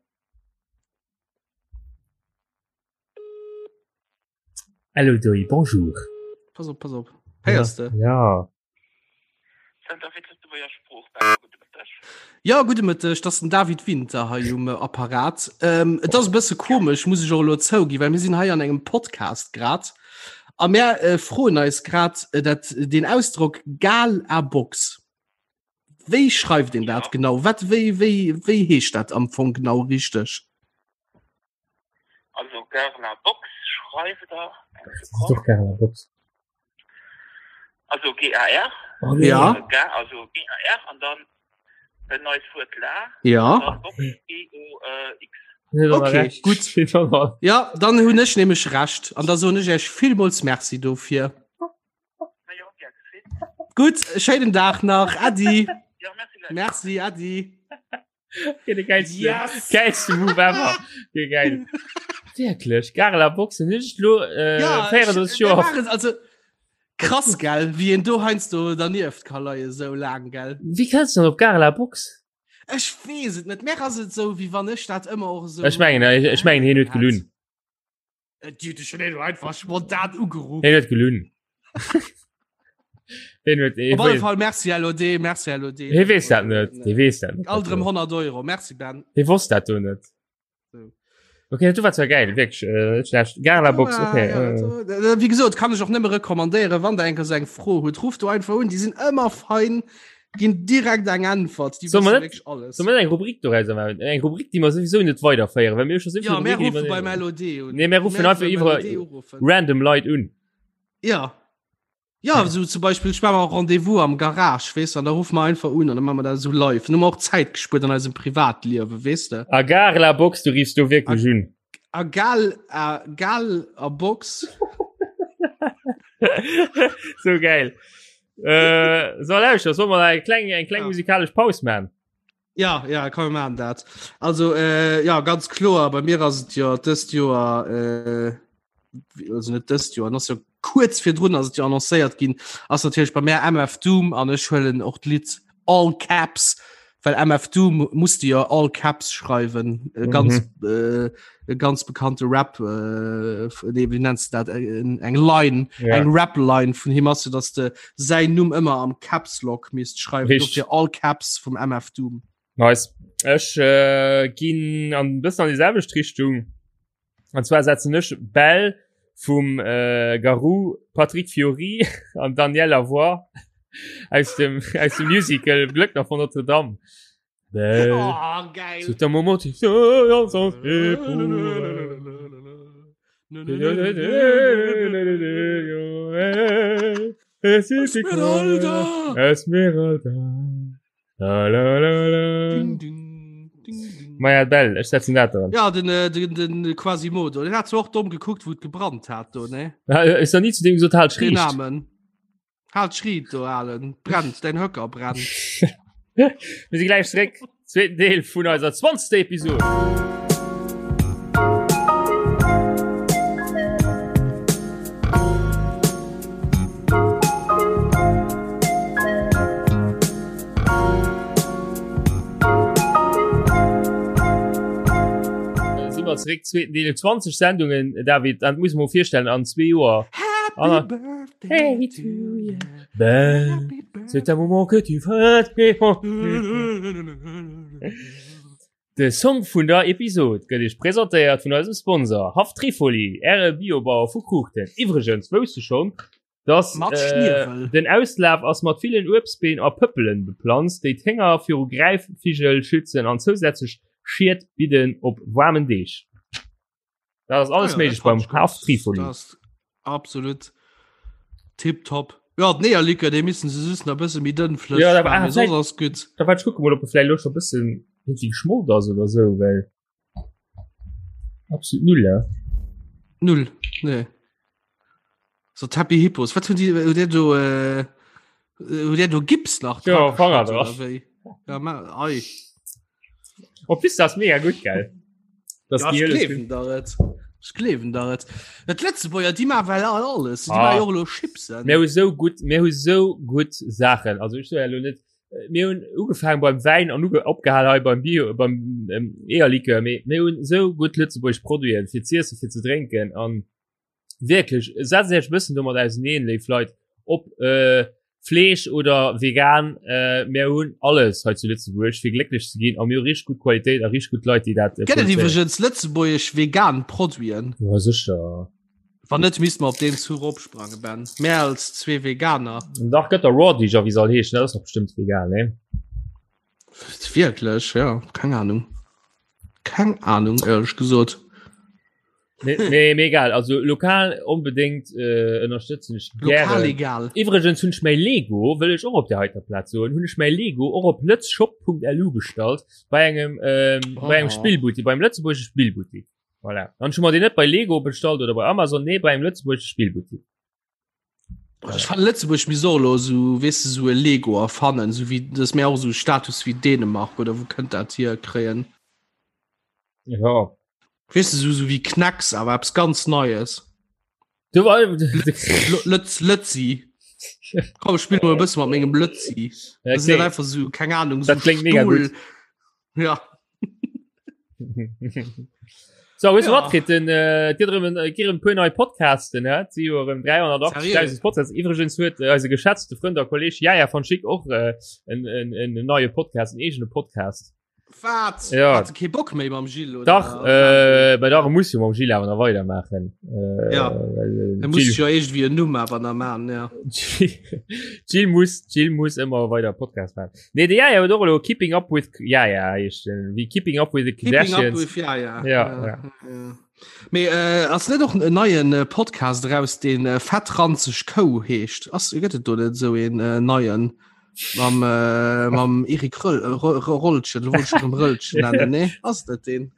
Allo Doi, bonjour. Pass op, pass op. Héiers de? Ja. Ja, gudde Mëtteg, dat ass den David Winter hei um äh, Apparat. Ähm, et ass e bësse komesch, muss ech och elo zouginn, well mir sinn hei an engem Podcast grad. A mär äh, froen eis grad äh, dat, den Ausdrock Gal a Box. Wéi schreift een dat genau? Wat, wéi, wéi, wéi heescht dat am Fong genau richteg? Also Gare la Box schreift der eng Sekonn. Doch Gare la Box. Also GAR. Oh, nee. Ja. Äh, Gar, also GAR an dann en neues Wuert la. Ja. An dann Box B-O-X. Okay, gut. Ja, dann hunn ech nämlech Recht an da soen ech Iech villmools Merci dofir. Gutt, schéinen Dag nach. Äddi. Ja, merci gleich. Merci, Äddi. Okay, de geilste, Yes! geilste Move ever. Okay, geil. Wirklich, Gare la Box, nicht lo, äh, Ja, 34 ech- mir Joer. waren also krass gell, wie een do heiansdo dernieft ka leie sou laang gell. Wie kannst du denn op Gare la Box? Ech weess et net, mär ass et sou wéi wann ech dat ëmmer och esou. Ech mengen, ech, ech mengen, hien huet gelunn. Äh, Di schon een einfach spontan ugerufen. Hien huet gelunn. Hien huet, hien Op alle weess, Fall merci LOD, merci LOD. hie weess dat net. Hie weess dat net. Alt erëm 100 Euro, merci Ben. Hie wosst dat do net. So. Okay, du war zwar geil, wirklich, äh, net schlecht. Gare la Box, okay. Ja, äh. ja, äh, Wie gesot, kann ech och nëmme rekommandéieren, wann der enker sou eng Fro hutt, rufft do einfach un, déi sinn ëmmer fein, ginn direkt eng Äntwert, déi Soll wësse mer net- wierklech alles. Soll mer eng Rubrik doraus maachen? Eng Rubrik, déi mer sowieso net weiderféieren, well mir hu scho so vill Ja, mir Rubriken, déi rufe mer beim LOD un. Nee, mir ruffen einfach beim iwwer- LOD uruffen. random Leit un. Ja. Ja, so zum Beispiel ich war Rendezvous am Garage wees an da ruf man einfach un an dann machen wir da so live. Nur auch Zeit gespürt an eisem Privatliewe wees de. A Gare la Box, du riefst du wirklich un. A gal a gal a Box. so geil. Äh, so lauschter, soll mal eng kleng eng kleng Ja. musikalisch Paus man. Ja ja kann man dat. Also äh, ja ganz kloer bei mir ass et jo dëst Joer äh, also net dëst Joer ass jo kuerz virdrun ass et jo annoncéiert ginn ass natierlech bei mär MF Doom an ech huelen och d'Lidd All Caps well MF Doom muss de jo All Caps schreiwen e ganz mhm. äh, e ganz bekannte Rap äh, nee, wie nennst du dat äh, eng Line ja. eng Rap Line vun him ass dass de säin Numm ëmmer am Caps Lock misst schreiwen fir All Caps vum MF Doom. Nice. Ech äh, ginn an bëssen an déi selwecht Richtung. An zwar setzen ech Bell vum äh, Garou, Patrick Fiori an Daniel Lavoie aus dem, aus dem Musical Glöckner von Notre Dame. Belle, oh, geil. C'est un moment qui Esmeralda. Esmeralda. La, la, la, la. Ding, ding, ding, ding. Maja Bell, ech setzen dat dran. Ja, den, äh, den, den Quasimodo. Den hat zwar och domm gekuckt, wou et gebrannt hat do, ne? Ja, Ist da nie zu dem gesagt, halt Den schricht. Namen. Halt schriet do, Alen. Brennt, dein Höcker brennt. Wir sind gleich zurück. Zweiten Deel vun eiser 20. Episode. Äh, Sind wir zurück, zweiten Deel, 20 Sendungen, David, dat muss man vorstellen, an zwee Joer. Happy Anna. Birthday Hey to you. Ben, Happy birthday. c'est un moment que tu fêtes. De Song vun der Episod gëtt Iech presentéiert vun eisem Sponsor Haff Trifoli, Äre Biobauer vu Kruuchten. Iwwregens, wousst du schonn, dass Mat äh, Schniewel. den Auslaf ass mat villen Uebstbeem a Pëppelen beplanzt, déi d'Hénger viru Gräifvigel schützen an zousätzlech Schied bidden op waarmen Deeg. Dat ass alles ah, ja, méiglech beim Haf Trifoli. Absolut tipptopp. Ja, d'Eeërlikör, dee missen se just nach e bësse méi dënn flësseg Ja, da war- maachen, ah, mee soss vielleicht- ass gutt. Da wat kucke mol, ob e vläicht lo scho bëssen irgendwie geschmolt ass oder sou, well absolut null, ja. Null, nee. So d'Happy Hippos, wat hunn déi, hutt Dir do, äh, hutt Dir do Gips nach Ja, dra Fanger geschott dra. oder wéi? Ja, ma, ei. Op bis das mega gut geil. Das ja, gleewen der et. Ech gleewen der et. Et Lëtzebuerger déi ma well all alles. Déi ah. jo lo Chipsen. Mir hu sou gutt mir hu sou gutt Saachen. Also ich so lo net äh, mir hunn ugefaangen beim Wäin an opgehal hei beim Bio beim ähm, Eierlikör. Mir hunn sou gutt lëtzebuergesch Produiten fir z'iessen, fir ze drénken an Wierklech, setzt Iech e bëssen domat auseneen, léif Leit, ob äh, Fleesch oder vegan, äh, mir hunn alles hei zu Lëtzebuerg, fir glécklech ze ginn, a mir hu richteg gutt Qualitéit a richteg gutt Leit, déi dat äh, Gëtt et iwwregens lëtzebuergesch vegan Produiten? Ja, sécher. Wann net, misste mer op deen Zuch opsprangen, Ben. Mär als zwee Veganer. Dach, gëtt der Raw Deeg a wéi se all heeschen, dat ass dach bestëmmt vegan, nee? Wierklech, ja, keng Ahnung. Keng Ahnung, éierlech gesot. Nee, nee, mir egal. Also lokal onbedéngt äh, ënnerstëtzen ech Lokal egal. Iwwregens hunn ech mäi Lego, wëll ech och op der heiter Plaz soen, hunn ech mäi Lego och op lëtzshop.lu bestallt bei engem ähm, oh. bei engem Spillbuttik, beim lëtzebuergesche Spillbuttik. Voilà. Dann hu mer deen net bei Lego bestallt oder bei Amazon, nee, bei engem lëtzebuergesche Spillbuttik. Ech fannen Lëtzebuerg misst och elo esou, weess de, esou e Lego erfannen, esou wéi, dass mir och esou Status wéi Dänemark oder wou kënnt dat hier kréien. Ja. Weess de, esou esou wéi Knax, awer eppes ganz Neies. Du war Lëtz Lëtzi. Komm, ech spill mol e bësse mat mengem Lëtzi. Ja, Das ist okay. einfach so, keng Ahnung, so Dat klingt mega Stuhl. gut. Ja. So, weißt du Ja. wat, kritt den, äh, dir drëm, äh, gi rëm puer nei Podcasten, hä? Si jo erëm 380.000 Seriö? Podcasts. Iwwregens huet äh, eise geschätzte Frënd a Kolleg Jaja von Schick och äh, en, en, en, en neie Podcast, en eegene Podcast. Wat? Ja. Hat kee Bock méi mam Gilles, oder? Dach, äh, bei dach muss jo mam Gilles awer nach weidermaachen. Äh, Ja. well, äh, Er muss Gilles, jo irgendwie en Numm awer nach man, ja. Gilles muss, Gilles muss ëmmer weider Podcast maachen. Nee, de Jaja huet och elo Keeping Up with Jaja heescht den, wéi Keeping Up with the Keeping up Kardashians. with Jaja. Ja, ja. ja. Mee äh, ass net och en neien äh, Podcast raus, deen äh, Fettranzeg Kou heescht? Ass gëtt et do net esou een äh, neien mam, äh, mam Erik Röll, äh, Ro- Ro- Rollchen, wollt ich schon Röllchen nennen, nee? Ass dat deen?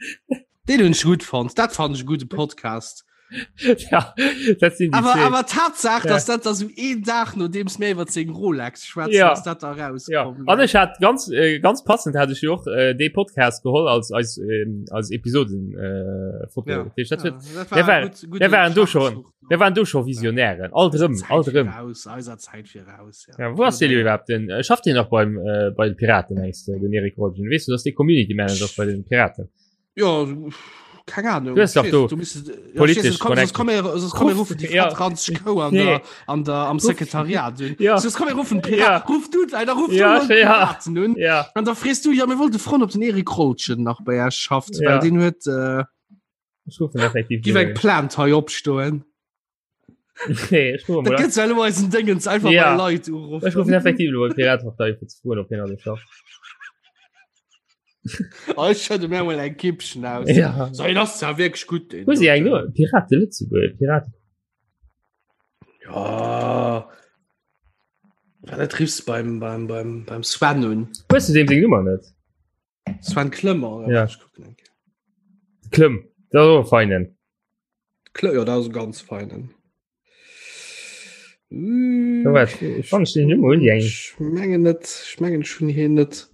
Deen hunn ech gutt fonnt. Dat fand ech e gudde Podcast. ja, dat sinn déi Awer, zwee. awer Tatsaach, Ja. dass dat da sou een Dag nodeems mir iwwer seng Rolex schwätzen, Ja. dass dat da Ja. rauskomm. An ech hat ganz äh, ganz passend hat ech jo och äh, dee Podcast geholl als als ähm, als Episoden äh, Foto. Ja. Dat heescht, dat huet- dat der war- gut- gute der waren do schon. Schachzug. Wir waren do scho Visionären. Alt rëm, alt rëm. Voraus, eiser Zäit viraus. Ja, wo ass deen iwwerhaupt denn? Äh, Schafft deen nach beim äh, bei den Piraten mengst du, den Erik Rolgen? Weess du, dass dee Community Manager ass bei den Piraten? Ja, keng Ahnung. Du hast doch do du bist, ja, politisch komm, komm, komm, Ruf- rufen die ja. Franz Kou an Nee. der, an der, am Sekretariat un. Ja. Sonst komm, rufen Pirat. Ja. Ruf du, Alter, ruf Ja, du ja. Piraten un. Ja. An da frees du, ja, mir wollte froen, ob den Erik Rolschen nach bei Iech schafft, Ja. well den huet, äh, Ech rufen effektiv. giff eng Plainte hei opstoen. Nee, ech rufen Dat mal. gëtt ja elo eisen Dingens einfach Ja. mal Leit uruffen. Ech rufen effektiv lo Piratenpartei fir ze froen, ob hien alles schafft. Oh, ech schëdde mir mol eng Kippchen aus. Ja. So, en ass ja wierklech gutt, den Wo si eng doten. no? Pirate Lëtzebuerg, Piraten. Ja. Wat dat riffs beim, beim, beim, beim Sven un. Hues du deem seng Nummer net? Sven Klëmmer oder Ja. Ech kucken eng Kéier. Klëmm, dat ass och e feinen. Klë ja, dat ass e ganz feinen. Ja, wat, ech fand ech den Nummer hunn déi eng. Ech mengen net, ech mengen ech hunn hien net.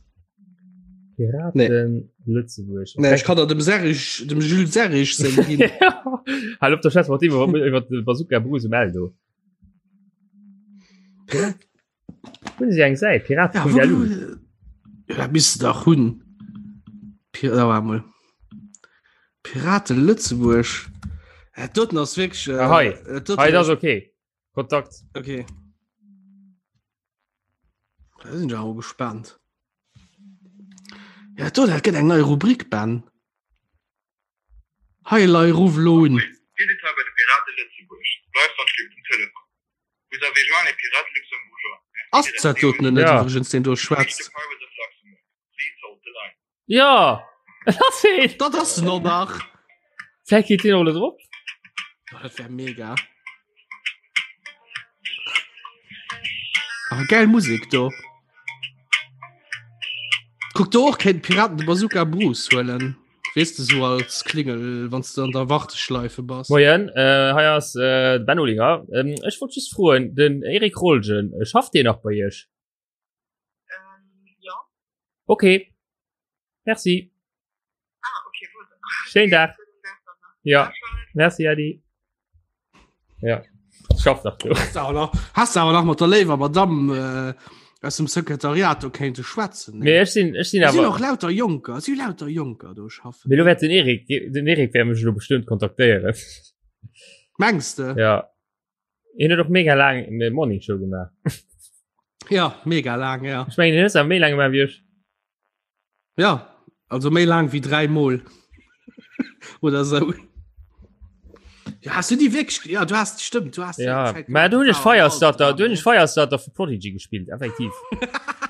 Piraten Lëtzebuerg. Nee, ech kann der dem Serge, dem Jules Serge seng ginn. Hal op der Schätz mat iwwer iwwer de Bazooka Bruce um Eldo. Hunn si eng Säit Pirate Ja, vun wo, der Lu. ja, dat misst du dach hunn. Pir da war mol. Pirate Lëtzebuerg. Ja, doten ass wierklech. Äh, Ah, hei. äh, doten Hei, dat ass okay. Kontakt. Okay. Da sinn ech awer gespannt. Ja, do, dat gëtt eng nei Rubrik, Ben. Hei lei ruff elo un. Dir sidd hei bei de Piraten Lëtzebuerg. Bleift dann schlimm um Telefon. Vous avez joint les Pirates luxembourgeois. Merci Ass de dat rester doten net Ja. iwwregens deen do To reach the schwätzt? Pirates of Luxembourg, please hold the line. Ja! Dat ass heen! Dat ass en och nach. Vläicht geet deen och elo drop. Oh, dat wär mega. Ah, geil Musik do. Kuck do och kéint Piraten de Bazooka Bruce huelen. Wees du so als Klingel, wann du an der Warteschleife bass. Moien, äh, hei ass äh, de Ben Olinger. Ähm, ech wollt just froen, den Eric Rolgen, äh, schafft deen nach bei Iech? Ähm, ja. Okay. Merci. Ah, okay, gut. Schönen Tag. Ja. Merci, Adi. Ja. Schafft nach du. Hast du awer nach, hast du awer nach mat der léiwer Madame äh, aus dem Sekretariat do kéinte schwätzen. Nee, ech sinn, ech sinn Es sinn awer. och lauter Jonker, es si lauter Jonker do schaffen. Mee lo wäert den Erik, den Erik wäert mech lo bestëmmt kontaktéieren. Mengs de? Ja. Hien huet och mega laang eng Morning Show gemaach. Ja, mega laang, ja. Ech mengen, hien huet se awer méi laang gemaach wéi ech. Ja, also méi laang wéi 3 Mol. Oder sou. Ja, hast du déi wierklech, ja, du hast, stimmt, du hast Ja, mä do hunn ech Firestarter, do hunn ech Firestarter vu Prodigy gespillt, effektiv.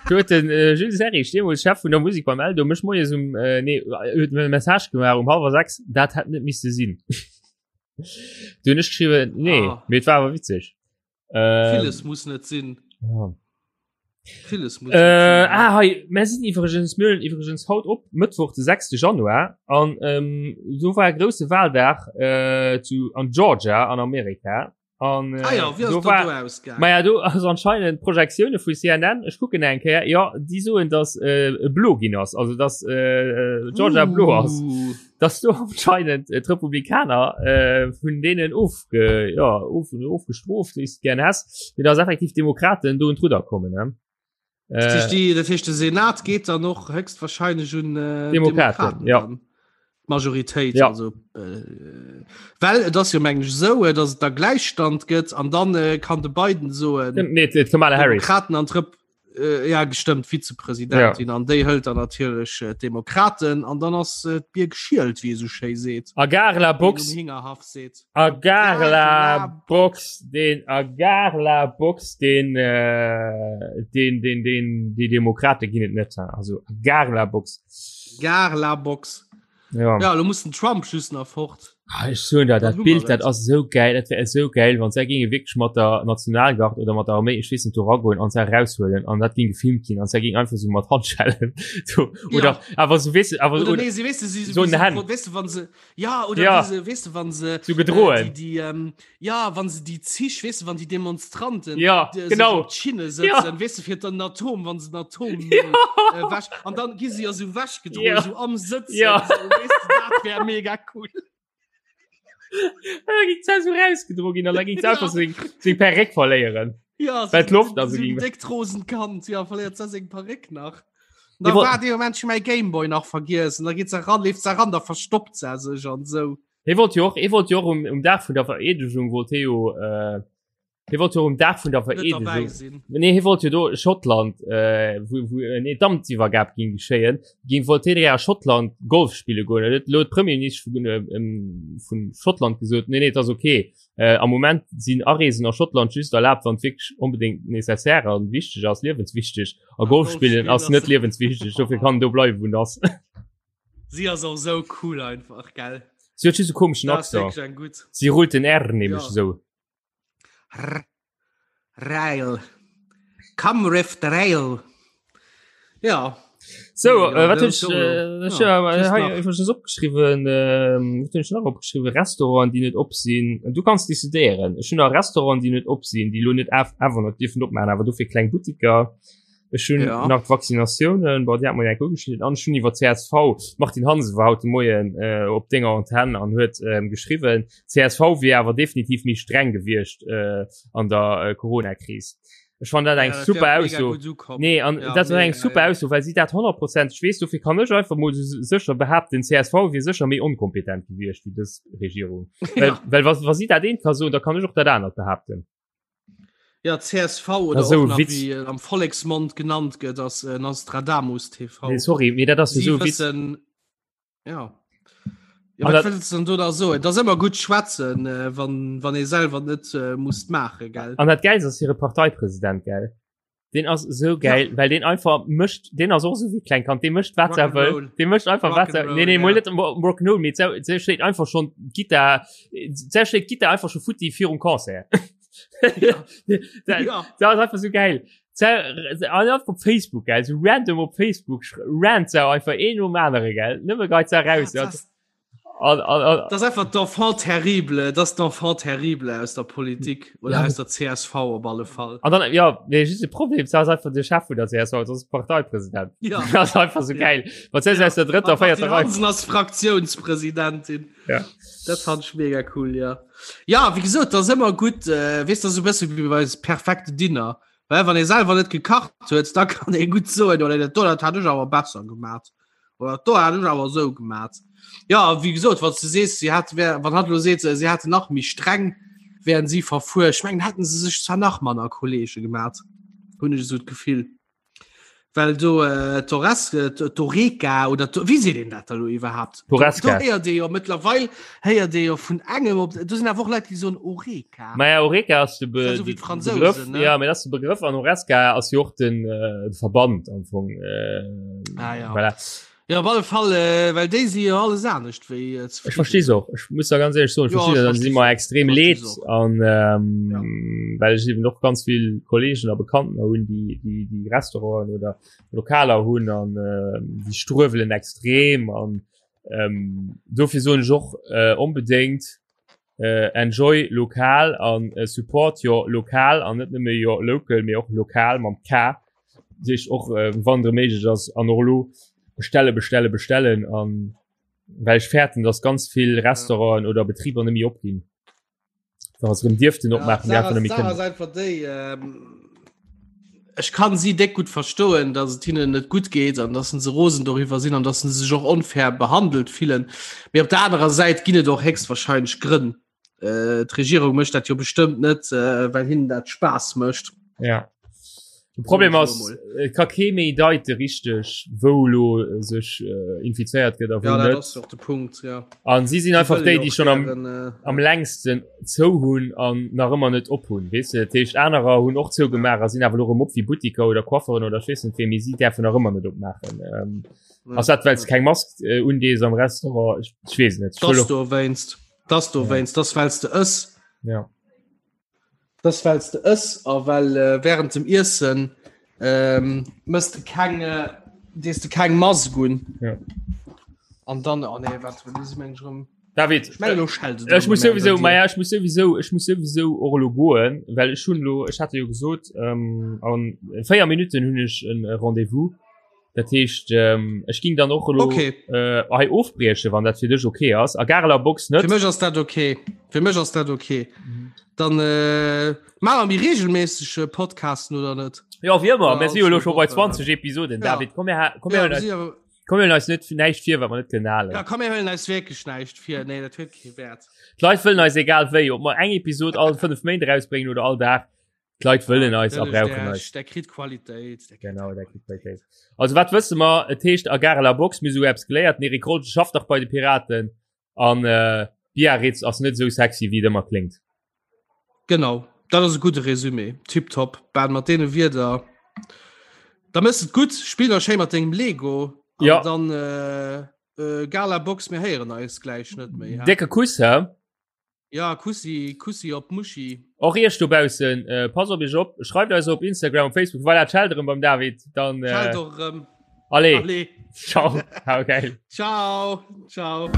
Do huet den äh, Jules Serrig, deemools Chef vun der Musik beim Eldo, mech moies um, äh, nee, huet mir e Message gemaach um hallwer 6, dat hätt net misse sinn. Du hunn ech geschriwwen, nee, Ah. mee et war awer witzeg. Ähm, Villes muss net sinn. Ja. Villes muss Äh, net sinn. ah, hei, mir sinn iwwregens, mir huelen iwwregens haut op, Mëttwoch, de 6. Januar, an ähm, do war e grousse Wahldag äh, zu, an Georgia an Amerika. An, äh, Ah ja, wie ass do dat war, do ausgaangen? Ma ja, do ass anscheinend Projektioune vu CNN, ech kucken eng Kéier, ja, déi soen, dass äh, e blo ginn ass, also dass äh, Georgia uh. blo ass. Uh. Dass do anscheinend äh, d'Republikaner äh, vun deenen ofge, ja, of, ofgestroft, wéi s de gern häss, mee dass effektiv Demokraten do un d'Rudder kommen. Ne? Das heescht, die, das heescht, de Senat geet dann och höchstwahrscheinlech un äh, Demokraten, Demokraten ja. dann. Majoritéit Ja. also äh, well et ass jo mengen ech esou, äh, dass et da Gläichstand gëtt an dann äh, kann de Biden soen Nee, d'Kamala Harris. Demokraten an d'Rep äh, ja gestëmmt Vizepräsidentin an déi hëlt dann natierlech äh, d'Demokraten an dann ass äh, d'Bier geschielt, wéi ee sou schéi seet. A gare la Wéi een Box. um Hingerhaff seet. A gare la Box, den a gare la Box, den äh, den den den déi Demokrate ginn et net. Also a gare la Box. Gare la Box. Ja. Ja, lo muss den Trump just nach fort. Ah, ech soen der, Dann dat hu mer Bild, dat et. ass esou geil, dat wär esou geil, wann se ginge wierklech mat der Nationalgard oder mat der Arméi, ech weess net, do ragoen an se raushuelen an dat ging gefilmt ginn an se ging einfach so mat Handschellen do, oder Ja. awer so weess awer Oder oder, nee, sie, weißt du, sie, so wie in sie, den Händen. weißt du, wann sie, ja, oder Ja. wie sie, weißt du, wann sie, so gedrohen. Äh, die, die, ähm, ja, wann sie die Zich, weißt du, wann die Demonstranten Ja, die, sich genau. op d'Schinne sitzen, Ja. weißt du, fir den Atom, wann sie den Atom Ja. äh, wäsch, an dann gi sie ja so wäschgedrohen, Ja. so am Sitzen, Ja. so, weißt du, dat wär mega cool. Da ging se so rausgedrohen ginn an da ging se Ja. einfach seng seng Perréck verléieren. Ja, so, Well d'Loft also so ging. dick Rosenkant, ja, verléiert se seng Perréck nach. Da Nee, wo- war de Moment schon mein Gameboy nach vergessen. Da geht se ran, lebt se ran, da verstoppt se sich an so. Hie wollt jo och, hie wollt jo och um, um Dag vun der Vereedegung wollt hie jo, äh, hie wollt jo um Dag vun der Net dabei Vereedegung. sinn. Nee, hie wollt jo do Schottland, äh, wou, wou, äh, nee, d'Amtsiwwergab ging geschéien, ging wollt hie direkt a Schottland Golf spille goen. Da huet lo d'Premierministesch vun, äh, ähm, vun Schottland gesot, nee, nee, et ass okay. Äh, am Moment sinn Areesen a Schottland just erlaabt, wann et wierklech onbedéngt nécessaire an wichteg ass, liewenswichteg. A Golf spillen ass net liewenswichteg, dofir kann en do bleiwen, wou en ass. Sie ass och sou cool einfach, gell? Si huet just e komeschen Dat ass Accent. wierklech eng gutt. Si rullt den R nämlech Ja. esou. R Rail. Come riff the rail. Ja. So, Ja, äh, wat dat hunn ass ech, jo- äh, ech, ja, äh, just hei nach. iwwregens opgeschriwwen, ähm, wat hunn ech nach opgeschriwwen? Restauranten, déi net op sinn. Du kanns decidéieren. Ech hunn nach Restauranten, déi net op sinn, déi lo net af awer net dierfen opmaachen, awer dofir kleng Buttiker. Ech hunn Ja. nach d'Vaccinatiounen, bon, déi hat mer jo enk ugeschnidden, an ech hunn iwwer csv, d'Martine Hansen war haut de Moien äh, op denger Antenn an huet ähm, geschriwwen, csv wier awer definitiv méi streng gewiescht äh, an der äh, Corona-Kris. Ech fand dat eng Ja, dat super wär mega Ausso. gutt ukomm. Nee, an Ja, dat war eng mega, super ja. Ausso, well si dat 100 ech weess, dofir kann ech einfach mol so sécher behaapten, csv wier sécher méi onkompetent gewiescht wéi dës Regierung. Well, Ja. well wa, wa si dat eent ka soen, da kann ech och dat anert behaapten. Ja, csv oder so och nach, Witz. wéi äh, am Volleksmond genannt gëtt, ass äh, Nostradamus TV. Nee, sorry, mee dat ass jo Sie sou Witz. wëssen, ja. Ja, An wat dat- wëlls du denn do da soen? Et ass ëmmer gutt schwätzen, äh, wann, wann ee selwer net äh, muss maachen, gell? An dat Geilst ass hire Parteipresident, gell? Den ass so geil, ja. well den einfach mëscht den ass och so wie kleng kann den mëscht wat er wëll den mëscht einfach wat er nee, nee, ja. net Rock'n'Roll mee se schléit einfach schon Gitar se schléit Gitar einfach schon futti virum Concert ja. da, ja. da ass einfach so geil op Facebook geil so random op Facebook rant se einfach een um anere geil nëmme geit se raus ja, das An, an, an, das einfach d'enfant terrible das d'enfant terrible aus der Politik oder ja. aus der CSV op alle Fall an dann ja nee, just de Problem das einfach de Chef vun der CSV das ist Parteipräsident ja. das einfach so ja. geil was ja. aus der dritter vierter Reihe als Fraktionspräsidentin ja das fand ich mega cool ja ja wie gesagt das immer gut äh, weißt du so besser wie bei perfekte Dinner weil wann ihr selber net gekacht huet da kann e gut so oder dat hat ich aber besser gemacht Oder do hat ech awer esou gemat. Ja, wéi gesot, wann du sees, si hat wär, wann hat lo seet, si hätten nach méi streng wären si verfuer. Ech mengen, hätten se sech zwar nach manner Kollege gemat, hunn ech esou d'Gefill. Well do äh, d'Ores, äh, d'Oreca oder d'O- wéi seet een dat da lo iwwerhaapt? Do D'Horesca. héiert ee jo mëttlerweil héiert ee jo vun engem op, do sinn awer och Leit, déi soen Oreca. Maja Oreca ass de, Be Das ist so wie de d'Fransousen, Begrëff, ne? ja, mee dat ass de Begrëff an Horesca ass jo och den, äh, de Verband am Fong. Äh, Ah, ja. Voilà. Ja, op alle Fall, äh, well déi si jo alles anescht wéi äh, Ech verstees och. Ech muss da ganz ehrlich soen, ech Ja, verstees ech dat, si verstees mer och. extrem Verstees leed och. an ähm, well ech eben och ganz vill Kollegen a Bekannten hunn, déi, déi, déi Restauranten oder Lokaler hunn an äh, déi struewelen extrem an ähm, dofir soen ech och äh, onbedéngt äh, enjoy lokal an äh, support your lokal an net nëmme your local, mee och lokal mam K sech och äh, wann der méiglech ass an och lo bestelle bestelle bestellen an well ech fäerten, dass ganz vill Restauranten oder Betriber net méi opginn. Wa se rëm dierften opmaachen, ja, déi einfach net méi kënnen. kënnen. Einfach déi, ähm, ech kann si déck gutt verstoen, dass et hinnen net gutt geet an dass se rosen doriwwer sinn an dass se sech och onfair behandelt fillen. Mee op der anerer Säit ginn et och héchstwahrscheinlech Grënn. Äh, d'Regierung mécht dat jo bestëmmt net, äh, well hinnen dat Spaass mécht. Ja. De Problem ass, et ka kee méi deite richteg, wou lo sech äh, infizéiert gëtt a wou Ja, dat net. ass och de Punkt, ja. An si sinn einfach wëlle déi, jo déi och schon am, gären, äh, am längsten zou hunn an nach ëmmer net op hunn. Weess de, dat heescht anerer hunn och zougemaach a sinn awer lo erëm op wéi Buttiker oder Coiffeuren oder ech weess net wéi, mee si däerfen nach ëmmer net opmaachen. Ähm, ja, ass dat, well s ja. keng Mask äh, undees am Restaurant? Ech, ech weess net. Ech Das wëll och, dowéinst. Das dowéinst, das wells de ëss. ja. Das wells de ëss a well äh, während dem Iessen ähm, mëss de keng äh, dees de keng Mask un. Ja. An dann oh nee, wat meng ech rëm. David, Ech meng lo schellt et Ech erëm muss um Enn sowieso bei dir. ma ja, ech muss sowieso ech muss sowieso och elo goen, well ech hunn lo ech hatte jo gesot ähm, an 4 Minuten hunn ech en äh, Rendezvous. Dat heescht ähm, ech ging dann och elo Okay. äh, hei ofbrieche, wann dat fir dech okay ass. A Gareler Box net. Fir mech ass dat okay. Fir mech ass dat okay. Dann äh, maache mer méi regelméisseg äh, Podcasten oder net? Ja wéi ëmmer, Ja, mir si jo elo scho bei alles gut, 20 Episoden. Ja. David, komm mir ha- komm mir Ja, huelen wir eis, si awer- komm mir huelen eis net näischt vir, wat mer net kënnen halen. ja, komm mir huelen eis wierklech näischt vir. Nee, dat huet kee Wäert. D'Leit wëllen eis egal wéi, ob mer eng Episod all 5 Méint erausbréngen oder all Dag. D'Leit wëllen eis a brauchen eis. Der kritt Qualitéit. Genau, der kritt Qualitéit. Also wat wësse mer, et heescht a Gare la Box, mir sou eppes geléiert, den Erik Rolgen schafft dach bei de Piraten an äh, Biarritz ass net sou sexy wéi et ëmmer kléngt. Genau, dat ass e gudde Resumé. Tiptop. Ben, mat deene Wierder, da mëss et gutt, spill nach schéi mat dengem Lego an Ja. dann äh, äh, Gala Box, mir héieren eis gläich net méi. Décke Kuss, hä? Ja, Kussi, Kussi op d'Muschi. Och iech dobaussen, äh, passt op iech op, schreift eis op Instagram und Facebook, voilà, d'Scheld erëm beim David, dann äh, Schalt och erëm. allez, Allez. ciao, hau geil. Ciao, ciao.